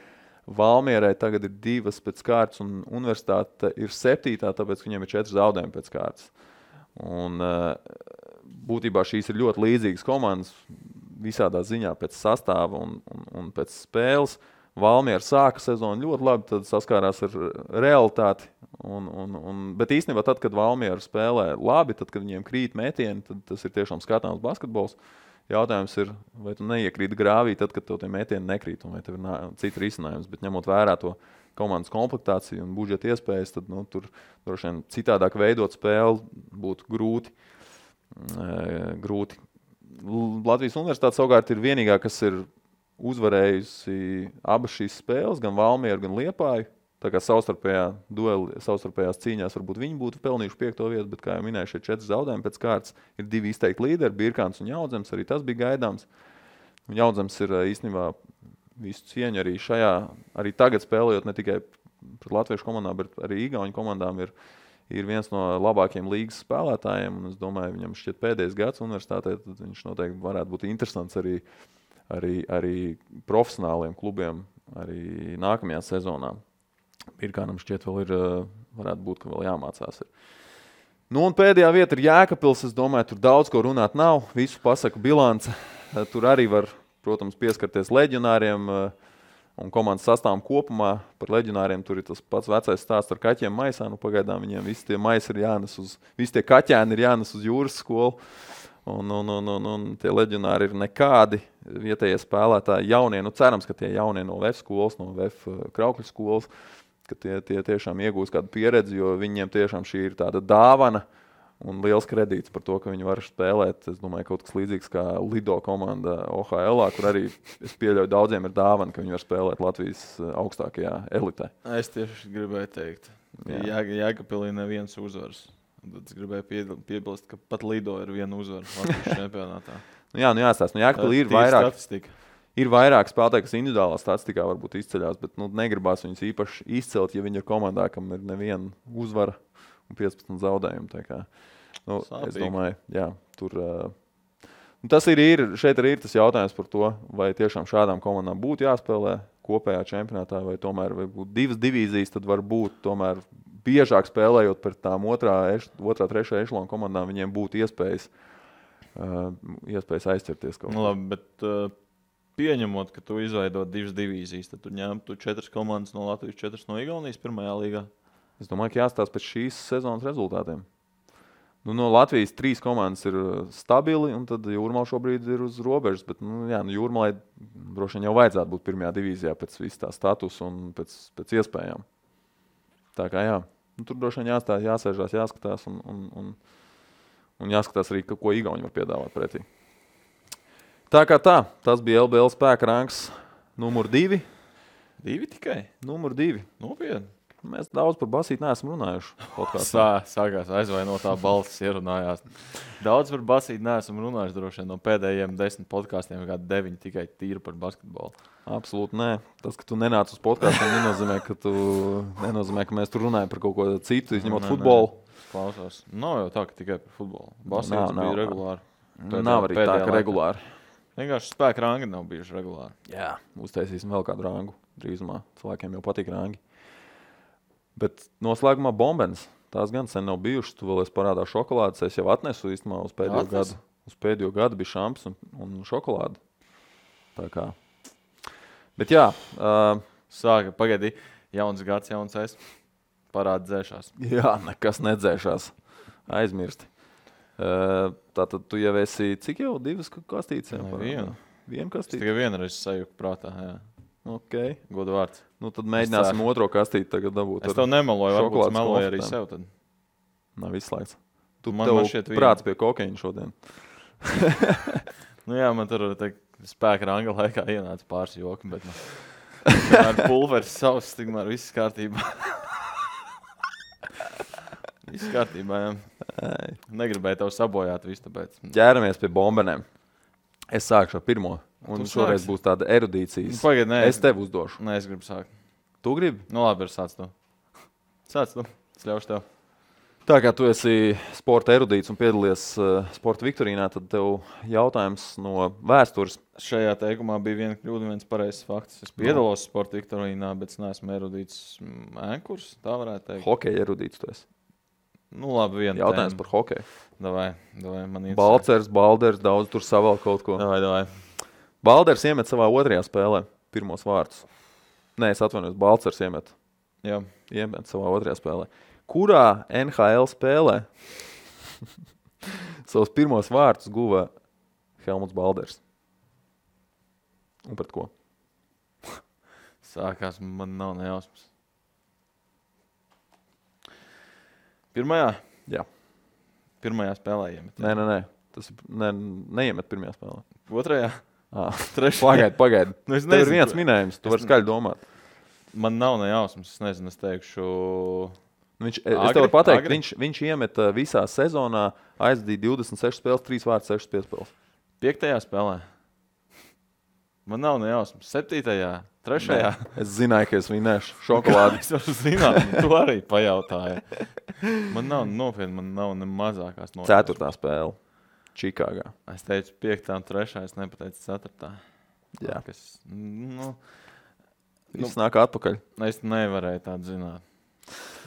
Valmierai tagad ir 2 pēc kārtas un Universitāte ir 7, tāpēc viņiem ir 4 zaudējumi pēc kārtas. Un būtībā šīs ir ļoti līdzīgas komandas visādā ziņā pēc sastāva un pēc spēles. Valmiera sāka sezonu ļoti labi, tad saskārās ar realitāti. Bet īstenībā tad, kad Valmiera spēlē labi, tad, kad viņiem krīt metieni, tad tas ir tiešām skatāms basketbols. Jautājums ir, vai tu neiekrīti grāvī tad, kad tev tie metieni nekrīt, un vai tev ir cita risinājums. Bet ņemot vērā to komandas komplektāciju un budžeta iespējas, tad tur droši vien citādāk veidot spēli būtu grūti. Latvijas Universitāte savukārt ir vienīgā, kas ir uzvarējusi abas šīs spēles, gan Valmieru, gan Liepāju. Tā kā savstarpējās cīņās varbūt viņi būtu pelnījuši 5. vietu, bet, kā jau minēju, šie 4 zaudējumi pēc kārtas ir 2 izteikti līderi, Birkāns un Jaudzems, arī tas bija gaidāms. Un Jaudzems ir īstenībā visu cieņu arī tagad spēlējot ne tikai pret latviešu komandām, bet arī igauņu komandām ir viens no labākajiem līgas spēlētājiem, un es domāju, viņam šķiet pēdējais gads universitātē, tad viņš noteikti varētu būt interesants arī profesionāliem klubiem arī nākamajā sezonā. Birkānam šķiet varētu būt, ka vēl jāmācās. Un pēdējā vieta ir Jēkabpils. Es domāju, tur daudz ko runāt nav. Visu pasaku bilance. Tur arī var, protams, pieskarties leģionāriem un komandas sastāvam kopumā. Par leģionāriem tur ir tas pats vecais stāsts ar kaķiem maisā. Pagaidām viņiem visi tie maisi ir visi tie kaķēni ir jānes uz jūras skolu. Un tie leģionāri ir nekādi vietējie spēlētāji jaunie. Cerams, ka tie jaunie no VF skolas, no VF Kraukļu skolas, ka tie tiešām iegūs kādu pieredzi, jo viņiem tiešām šī ir tāda dāvana un liels kredīts par to, ka viņi var spēlēt. Es domāju, kaut kas līdzīgs kā Lido komanda OHL, kur arī es pieļauju daudziem ir dāvana, ka viņi var spēlēt Latvijas augstākajā elitē. Es tieši gribēju teikt, Jēkabpilī neviens uzvars. Tad es gribēju piebilst, ka pat Lido ir viena uzvara Latvijas čempionātā. Jāstāst. Jēkabpilī ir vairāk statistika. Ir vairāk spēlētāji, kas individuālā statistikā varbūt izceļās, bet negribās viņus īpaši izcelt, ja viņi ir komandā, kam ir neviena uzvara un 15 zaudējumi. Tā kā, es domāju, tur... Tas šeit arī ir tas jautājums par to, vai tiešām šādām komandām būtu jāspēlē kopējā čempionātā, vai tomēr vai būtu 2 divīzijas, tad var būt tomēr biežāk spēlējot par tām otrā, 3. ešalona komandām, viņiem būtu iespējas aizķerties kaut kā. Labi, bet pieņemot, ka tu izveido 2 divīzijas, tad tu ņemtu 4 komandas no Latvijas, 4 no Igaunijas pirmajā līgā? Es domāju, ka jāstāsta pēc šīs sezonas rezultātiem. Nu, no Latvijas 3 komandas ir stabili, un tad Jūrmala šobrīd ir uz robežas. Bet, Jūrmalai droši vien jau vajadzētu būt pirmajā divīzijā pēc visu tā statusa un pēc iespējām. Tā kā tur droši vien jāsēžās, jāskatās un jāskatās arī, ko Igauni var piedāvāt pretī. Tā kā tas bija LBL spēka rangs numur 2. 2 tikai? Numur 2. Nopietni. Mēs daudz par basīti neesam runājuši. Sākās aizvainotā balss ierunājās. Daudz par basīti neesam runājuši droši vien no pēdējiem 10 podkāstiem, kā 9 tikai tīri par basketbolu. Absolūti nē. Tas, ka tu nenāc uz podkāstiem, nenozīmē, ka mēs tur runājam par kaut ko citu, izņemot futbolu. Klausos. Nav jau tā, ka tikai par futbolu. Basītis bija regulāri. Nav arī tā, ka regulāri. Vienkārši spēka rangi nav bijuši regulāri. Jā, uztaisīsim vēl kādu rangu drīzumā. Cilvēkiem jau patīk rangi. Bet noslēgumā bombenes. Tās gan sen nav bijušas. Tu vēl esi parādā šokolādes. Es jau atnesu īstenībā uz pēdējo gadu. Uz pēdējo gadu bija šamps un šokolāde. Tā kā. Bet jā. Sāka, pagaidi. Jauns gads, jauns es. Parāda dzēšās. Jā, nekas nedzēšās. Aizmirsti. Tātad tu jau esi, cik jau 2 kastītes? Vienu kastīti? Es tikai vienreiz sajūku prātā, jā. Ok. Godu vārds. Nu tad mēģināsim otro kastīti tagad dabūt. Es tev nemeloju, varbūt es meloju arī sev tad. Nav izslēgts. Tu man šķiet prāts pie kokaiņa šodien. Nu jā, man tur spēka ranga laikā ienāca pāris joki, bet tomēr pulveris savs, tikmēr viss kārtībā. Viss kārtībā, jā. Negribēju tev sabojāt visu, tāpēc. Ķēramies pie bombenēm. Es sākšu ar pirmo. Un šoreiz būs tāda erudīcijas. Pagaid, nē. Es tev uzdošu. Nē, es gribu sākt. Tu gribi? Nu labi, sāc tu. Sāc tu. Es ļaušu tev. Tā kā tu esi sporta erudīts un piedalies sporta viktorīnā, tad tev jautājums no vēstures. Šajā teikumā bija viena kļūda, viens pareizs fakts. Es piedalos sporta viktorīnā, bet es neesmu erudīts ēnkurs, tā varētu teikt. Hokeja erudīts tu esi. Nu labi, viena jautājums par hokeju. Davai, man interesē. Balcers, Balders, daudz tur savēl kaut ko. Davai. Balders iemet savā otrajā spēlē pirmos vārtus. Nē, es atvainojos, Balcers iemet. Jā. Iemet savā otrajā spēlē. Kurā NHL spēlē savus pirmos vārtus guva Helmuts Balders? Un pret ko? Sākās, man nav nejausmas. Pirmajā? Jā. Pirmajā spēlē iemet. Nē. Tas neiemet pirmajā spēlē. Otrajā? Trešajā. Pagaid. Nu, tev ir viens minējums, tu vari skaļi domāt. Man nav nejausmas, es nezinu, es teikšu... Es tev varu pateikt, viņš iemet visā sezonā, aizdīja 26 spēles, 3 vārtus, 6 piespēles. 5. spēlē? Man nav nejausmas. 7. 3. Es zināju, ka es vinēšu šokolādi. Es varu zināt, tu arī pajautāji. Man nav nopietni, man nav ne mazākās nopietnas. 4. spēle. Čikāgā. Es teicu 5. un 3. Es nepateicu 4. Jā. Viss nāk atpakaļ. Es nevarēju tādu zināt.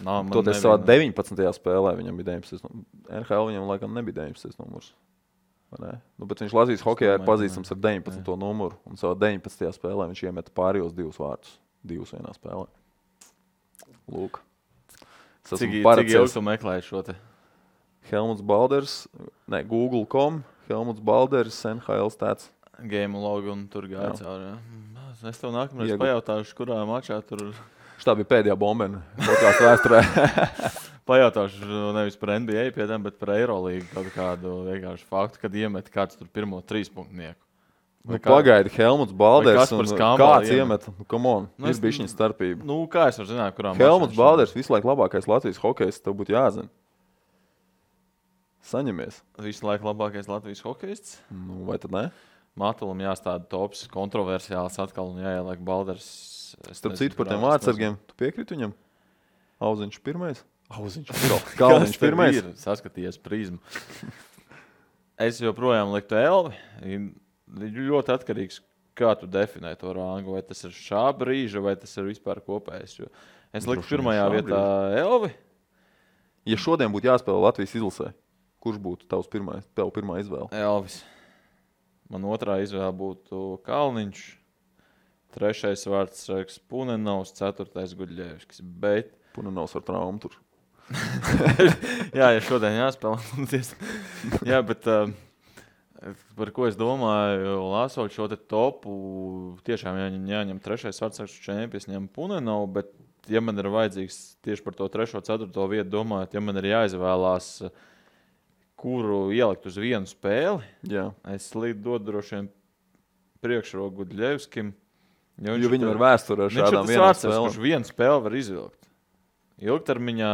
Toties savā 19. spēlē viņam bija 19. NHL viņam laikam nebija 19. numurs. Bet viņš Latvijas hokejā ir pazīstams ar 19. numuru. Un savā 19. spēlē viņš iemeta pārējos 2 vārtus. 2 vienā spēlē. Lūk. Cik ilgi tu meklēji šo te? Helmuts Balders, Google.com, Helmuts Balders, NHL stats. Game log un tur gāja cauri. Es tev nākamreiz pajautāšu, kurā mačā tur... Šitā bija pēdējā bombena podkāstu vēsturē. Pajautāšu nevis par NBA piedām, bet par Eirolīgu kaut kādu vienkārši faktu, kad iemet kāds tur pirmo 3 punktnieku. Pagaidi, Helmuts Balders un kāds iemet. Come on, ir bišķiņa starpība. Nu, kā es varu zināt, kurām Helmuts Balders visu laiku labākais Latvijas hokejs, tev būtu jāzina. Saņemies. Visu laiku labākais Latvijas hokejists? Nu, vai tad ne? Matulam jāstāda tops, kontroversiāls atkal un jāieliek Balders. Starp citu par tiem vārdsargiem, tu piekriti viņam? Auziņš pirmais? Kalniņš pirmais? Saskatījies prizmu. Es joprojām liktu Elvi. Ļoti atkarīgs, kā tu definē to rangu. Vai tas ir šā brīža, vai tas ir vispār kopējs. Es liktu pirmajā vietā Elvi. Ja šodien būtu jāspēlē Latvijas izlasē, kurš būtu tev pirmā izvēle? Elvis. Man otrā izvēle būtu Kalniņš. 3. vārds Punenovs, 4. Guļļevskis. Bet... Punenovs ar traumu tur. Jā, ja šodien jāspēlē. Jā, bet par ko es domāju, lasot šo te topu, tiešām jāņem trešais vārdsargs čempions, ņem Punenovs, bet ja man ir vajadzīgs tieši par to 3. 4. vietu domājot, ja man ir jāizvēlās, kuru ielikt uz vienu spēli, es dodu droši vien priekšroku Gudļevskim. Jo viņam ir vēsture ar šādām vienām spēlēm. Kurš vienu spēli var izvilkt. Ilgtermiņā,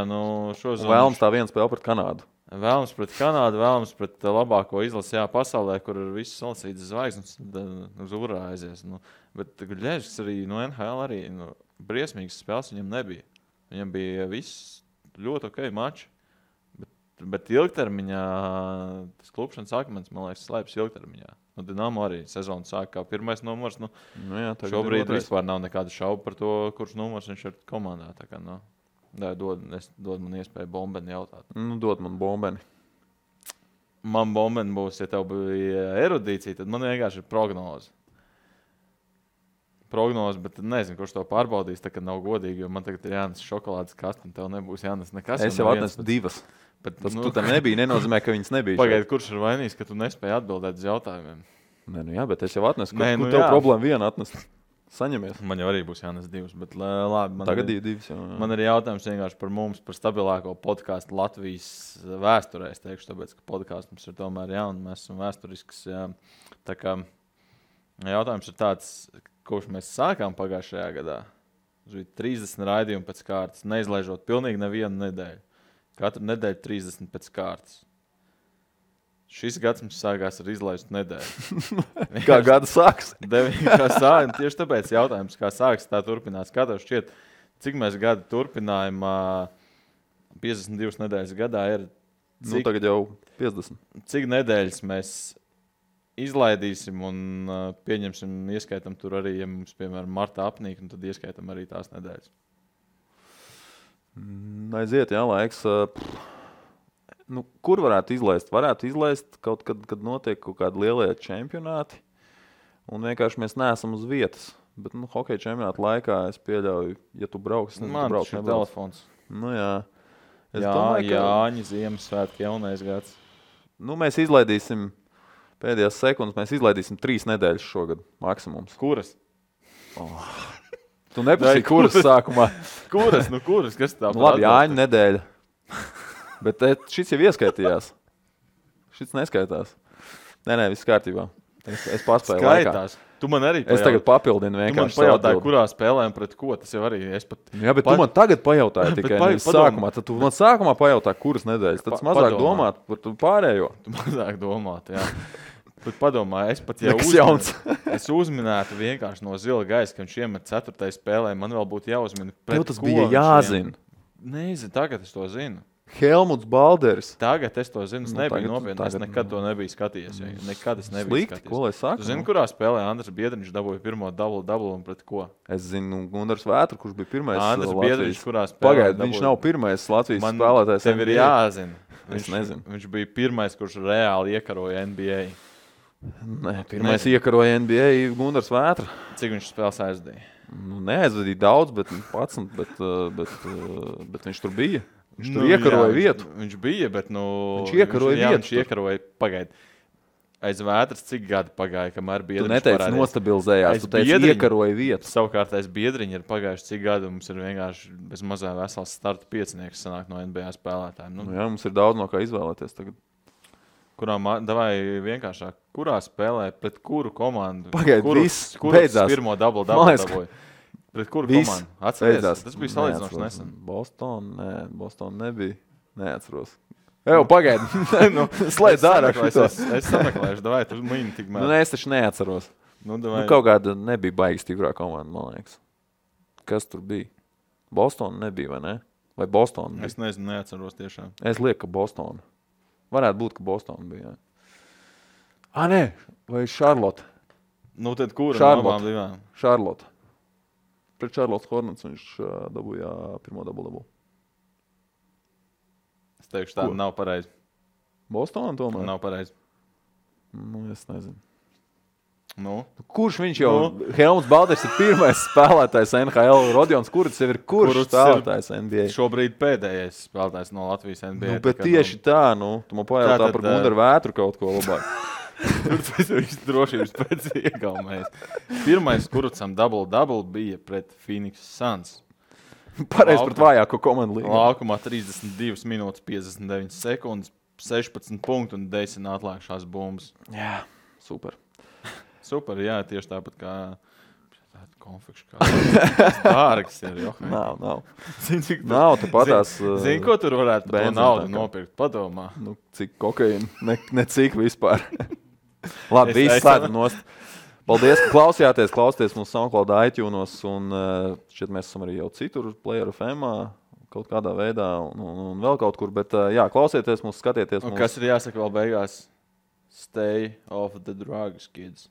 šo zonu. Vēlams tā viena spēle pret Kanādu. Vēlams pret Kanādu, vēlams pret labāko izlasi pasaulē, kur ir visas salasītas zvaigznes, uz urā aizies. Bet Gudļevskis arī no NHL arī briesmīgas spēles viņam nebija. Viņam bija viss ļoti ok mači. Bet ilgtermiņā tas klupšanas akmens, man liekas, slēpjas ilgtermiņā. Dinamo arī sezonu sāk kā pirmais numurs. Šobrīd vispār nav nekāda šauba par to, kurš numurs viņš ir komandā. Tā kā, dod man iespēju Bombeni jautāt. Dod man Bombeni. Man Bombeni būs, ja tev bija erudīcija, tad man vienkārši ir prognoze. Bet nezinu, kurš to pārbaudīs, tā kā nav godīgi, jo man tagad ir jānes šokolādes kaste, un tev nebūs jānes nekas. Es jau atnesu 2. Bet tas tu tam nebija, nenozīmē, ka viņas nebija. Pagaid, kurš ir vainīgs, ka tu nespēji atbildēt uz jautājumiem? Jā, bet es jau atnesu. Kur tev problēma viena atnest? Saņemies. Man jau arī būs jānes 2, bet labi. Tagad 2. Man ir jautājums vienkārši par mums, par stabilāko podkāstu Latvijas vēsturē. Es teikšu, tāpēc, ka podkāsts mums ir tomēr un mēs esam vēsturisks. Jā. Tā kā jautājums ir tāds, kurš mēs sākām pagājušajā gadā. 30 raidījumu pēc kārtas, neizlaižot pilnīgi nevienu nedēļu. Katru nedēļu 30 pēc kārtas. Šis gads mums sākās ar izlaistu nedēļu. Kā gada sāks? Tieši tāpēc jautājums, kā sāks, tā turpinās. Kā tev šķiet, cik mēs gadu turpinājām 52 nedēļas gadā ir? Tagad jau 50. Cik nedēļas mēs izlaidīsim un pieņemsim, ieskaitam tur arī, ja mums, piemēram, martā apnīk, tad ieskaitam arī tās nedēļas. Aiziet, laiks. Kur varētu izlaist? Varētu izlaist kaut kad, kad notiek kaut kādi lielie čempionāti, un vienkārši mēs neesam uz vietas. Bet, hokeja čempionāta laikā es pieļauju, ja tu brauks, man tas ir telefons. Jā. Domāju, ka Jāņi, Ziemassvētki, jaunais gads. Mēs izlaidīsim pēdējās sekundes, mēs izlaidīsim 3 nedēļas šogad maksimums. Kuras? Tu neprasīji, kuras sākumā? Kuras? Kas tā? Labi, Jāņa nedēļa. Bet šis jau ieskaitījās. Šis neskaitās. Nē, viss kārtībā. Es paspēju skaitās. Laikā. Tu man arī pajautāji. Es tagad papildinu vienkārši. Tu man pajautāji, kurā spēlējam pret ko. Tas jau arī es pat... Jā, bet tu man tagad pajautāji tikai sākumā. Tad tu man sākumā pajautāji, kuras nedēļas. Tad mazāk domāt par pārējo. Tu mazāk domāt, jā. Bet padomā, es pat jau es uzminētu vienkārši no zila gaisa, ka viņš iemet 4. spēlē. Man vēl būtu jāuzmina pret ko. Tev tas bija jāzina. Nezinu, tagad es to zinu. Helmuts Balderis. Tagad es to zinu, es nebiju nopietni. Es nekad to nebiju skatījies. Nekad es nebiju skatījies. Ko lai saka? Tu zini, kurā spēlē Andris Biedriņš dabūja pirmo double un pret ko? Es zinu Gundars Vētru, kurš bija pirmais Andris Biedriņš, kurā spēlē. Pagaid, viņš nav pirmais Latvijas spēlētājs. Tev ir jāzina. Es nezinu. Viņš bija pirmais, kurš reāli iekaroja NBA. Nē, pirmais iekaroja NBA Gundars Vētra. Cik viņš spēles aizdīja? Neaizvadīja daudz, bet 11, bet viņš tur bija. Viņš tur iekaroja vietu. Viņš bija, bet viņš iekaroja vietu. Viņš iekaroja, pagaid. Aiz Vētras cik gadi pagāja, kamēr Biedriņš parādījās? Tu neteici nostabilizējās, tu teici iekaroja vietu. Savukārt aiz Biedriņa ir pagājuši cik gadi, mums ir vienkārši bez mazā vesels starta piecinieks sanāk no NBA spēlētājiem. Jā, mums ir daudz no kā izvēlēties tagad. Davai vienkāršāk, kurā spēlē, pret kuru komandu? Pagaid, viss beidzās. Pirmo double dabūja? Pret kuru komandu? Atceries? Tas bija salīdzinoši nesen. Boston nebija. Neatceros. Evo, pagaidi. Slēdz ārā šito. Es sameklēšu, davai, tu mini tikmēr. Es taču neatceros. Kaut kāda nebija baigi stiprā komanda, man liekas. Kas tur bija? Boston nebija, vai ne? Vai Boston bija? Es nezinu, neatceros tiešām. Es lieku, ka Boston. Varētu būt, ka Boston bija. Nē, vai Charlotte? Tad kura no abām divām? Charlotte. Pret Charlotte Hornets viņš dabūja pirmo double. Es teikšu, tā nav pareizi. Bostonā tomēr? Nav pareizi. Es nezinu. Nu? Kurš viņš jau? Helmuts Balders ir pirmais spēlētājs NHL. Rodions Kurts jau ir kurš spēlētājs NBA? Šobrīd pēdējais spēlētājs no Latvijas NBA. Bet tieši tā, tu man pajautā par Gundaru Vētru kaut ko labāk. Tur tas viss drošības pēc iegaumēs. Pirmais Kurtsam double bija pret Phoenix Suns. Pareizi pret vājāko komandu līgā. Laukumā 32 minūtes 59 sekundes, 16 punktu un 10 atlēkšās bumbas. Jā, super. Super, jā, tieši tāpat kā konfekšu kā dārgs ir. Nav. Nav, tu patās... Zini, ko tur varētu par to naudu nopirkt? Padomā. Cik kokaīna? Ne cik vispār. Labi, viss slēdz nost. Paldies, ka klausījāties mums SoundCloud, iTunes un šķiet mēs esam arī jau citur, Player FM-ā, kaut kādā veidā un vēl kaut kur, bet jā, klausieties mums, skatieties mums. Un kas ir jāsaka vēl beigās? Stay off the drugs, kids.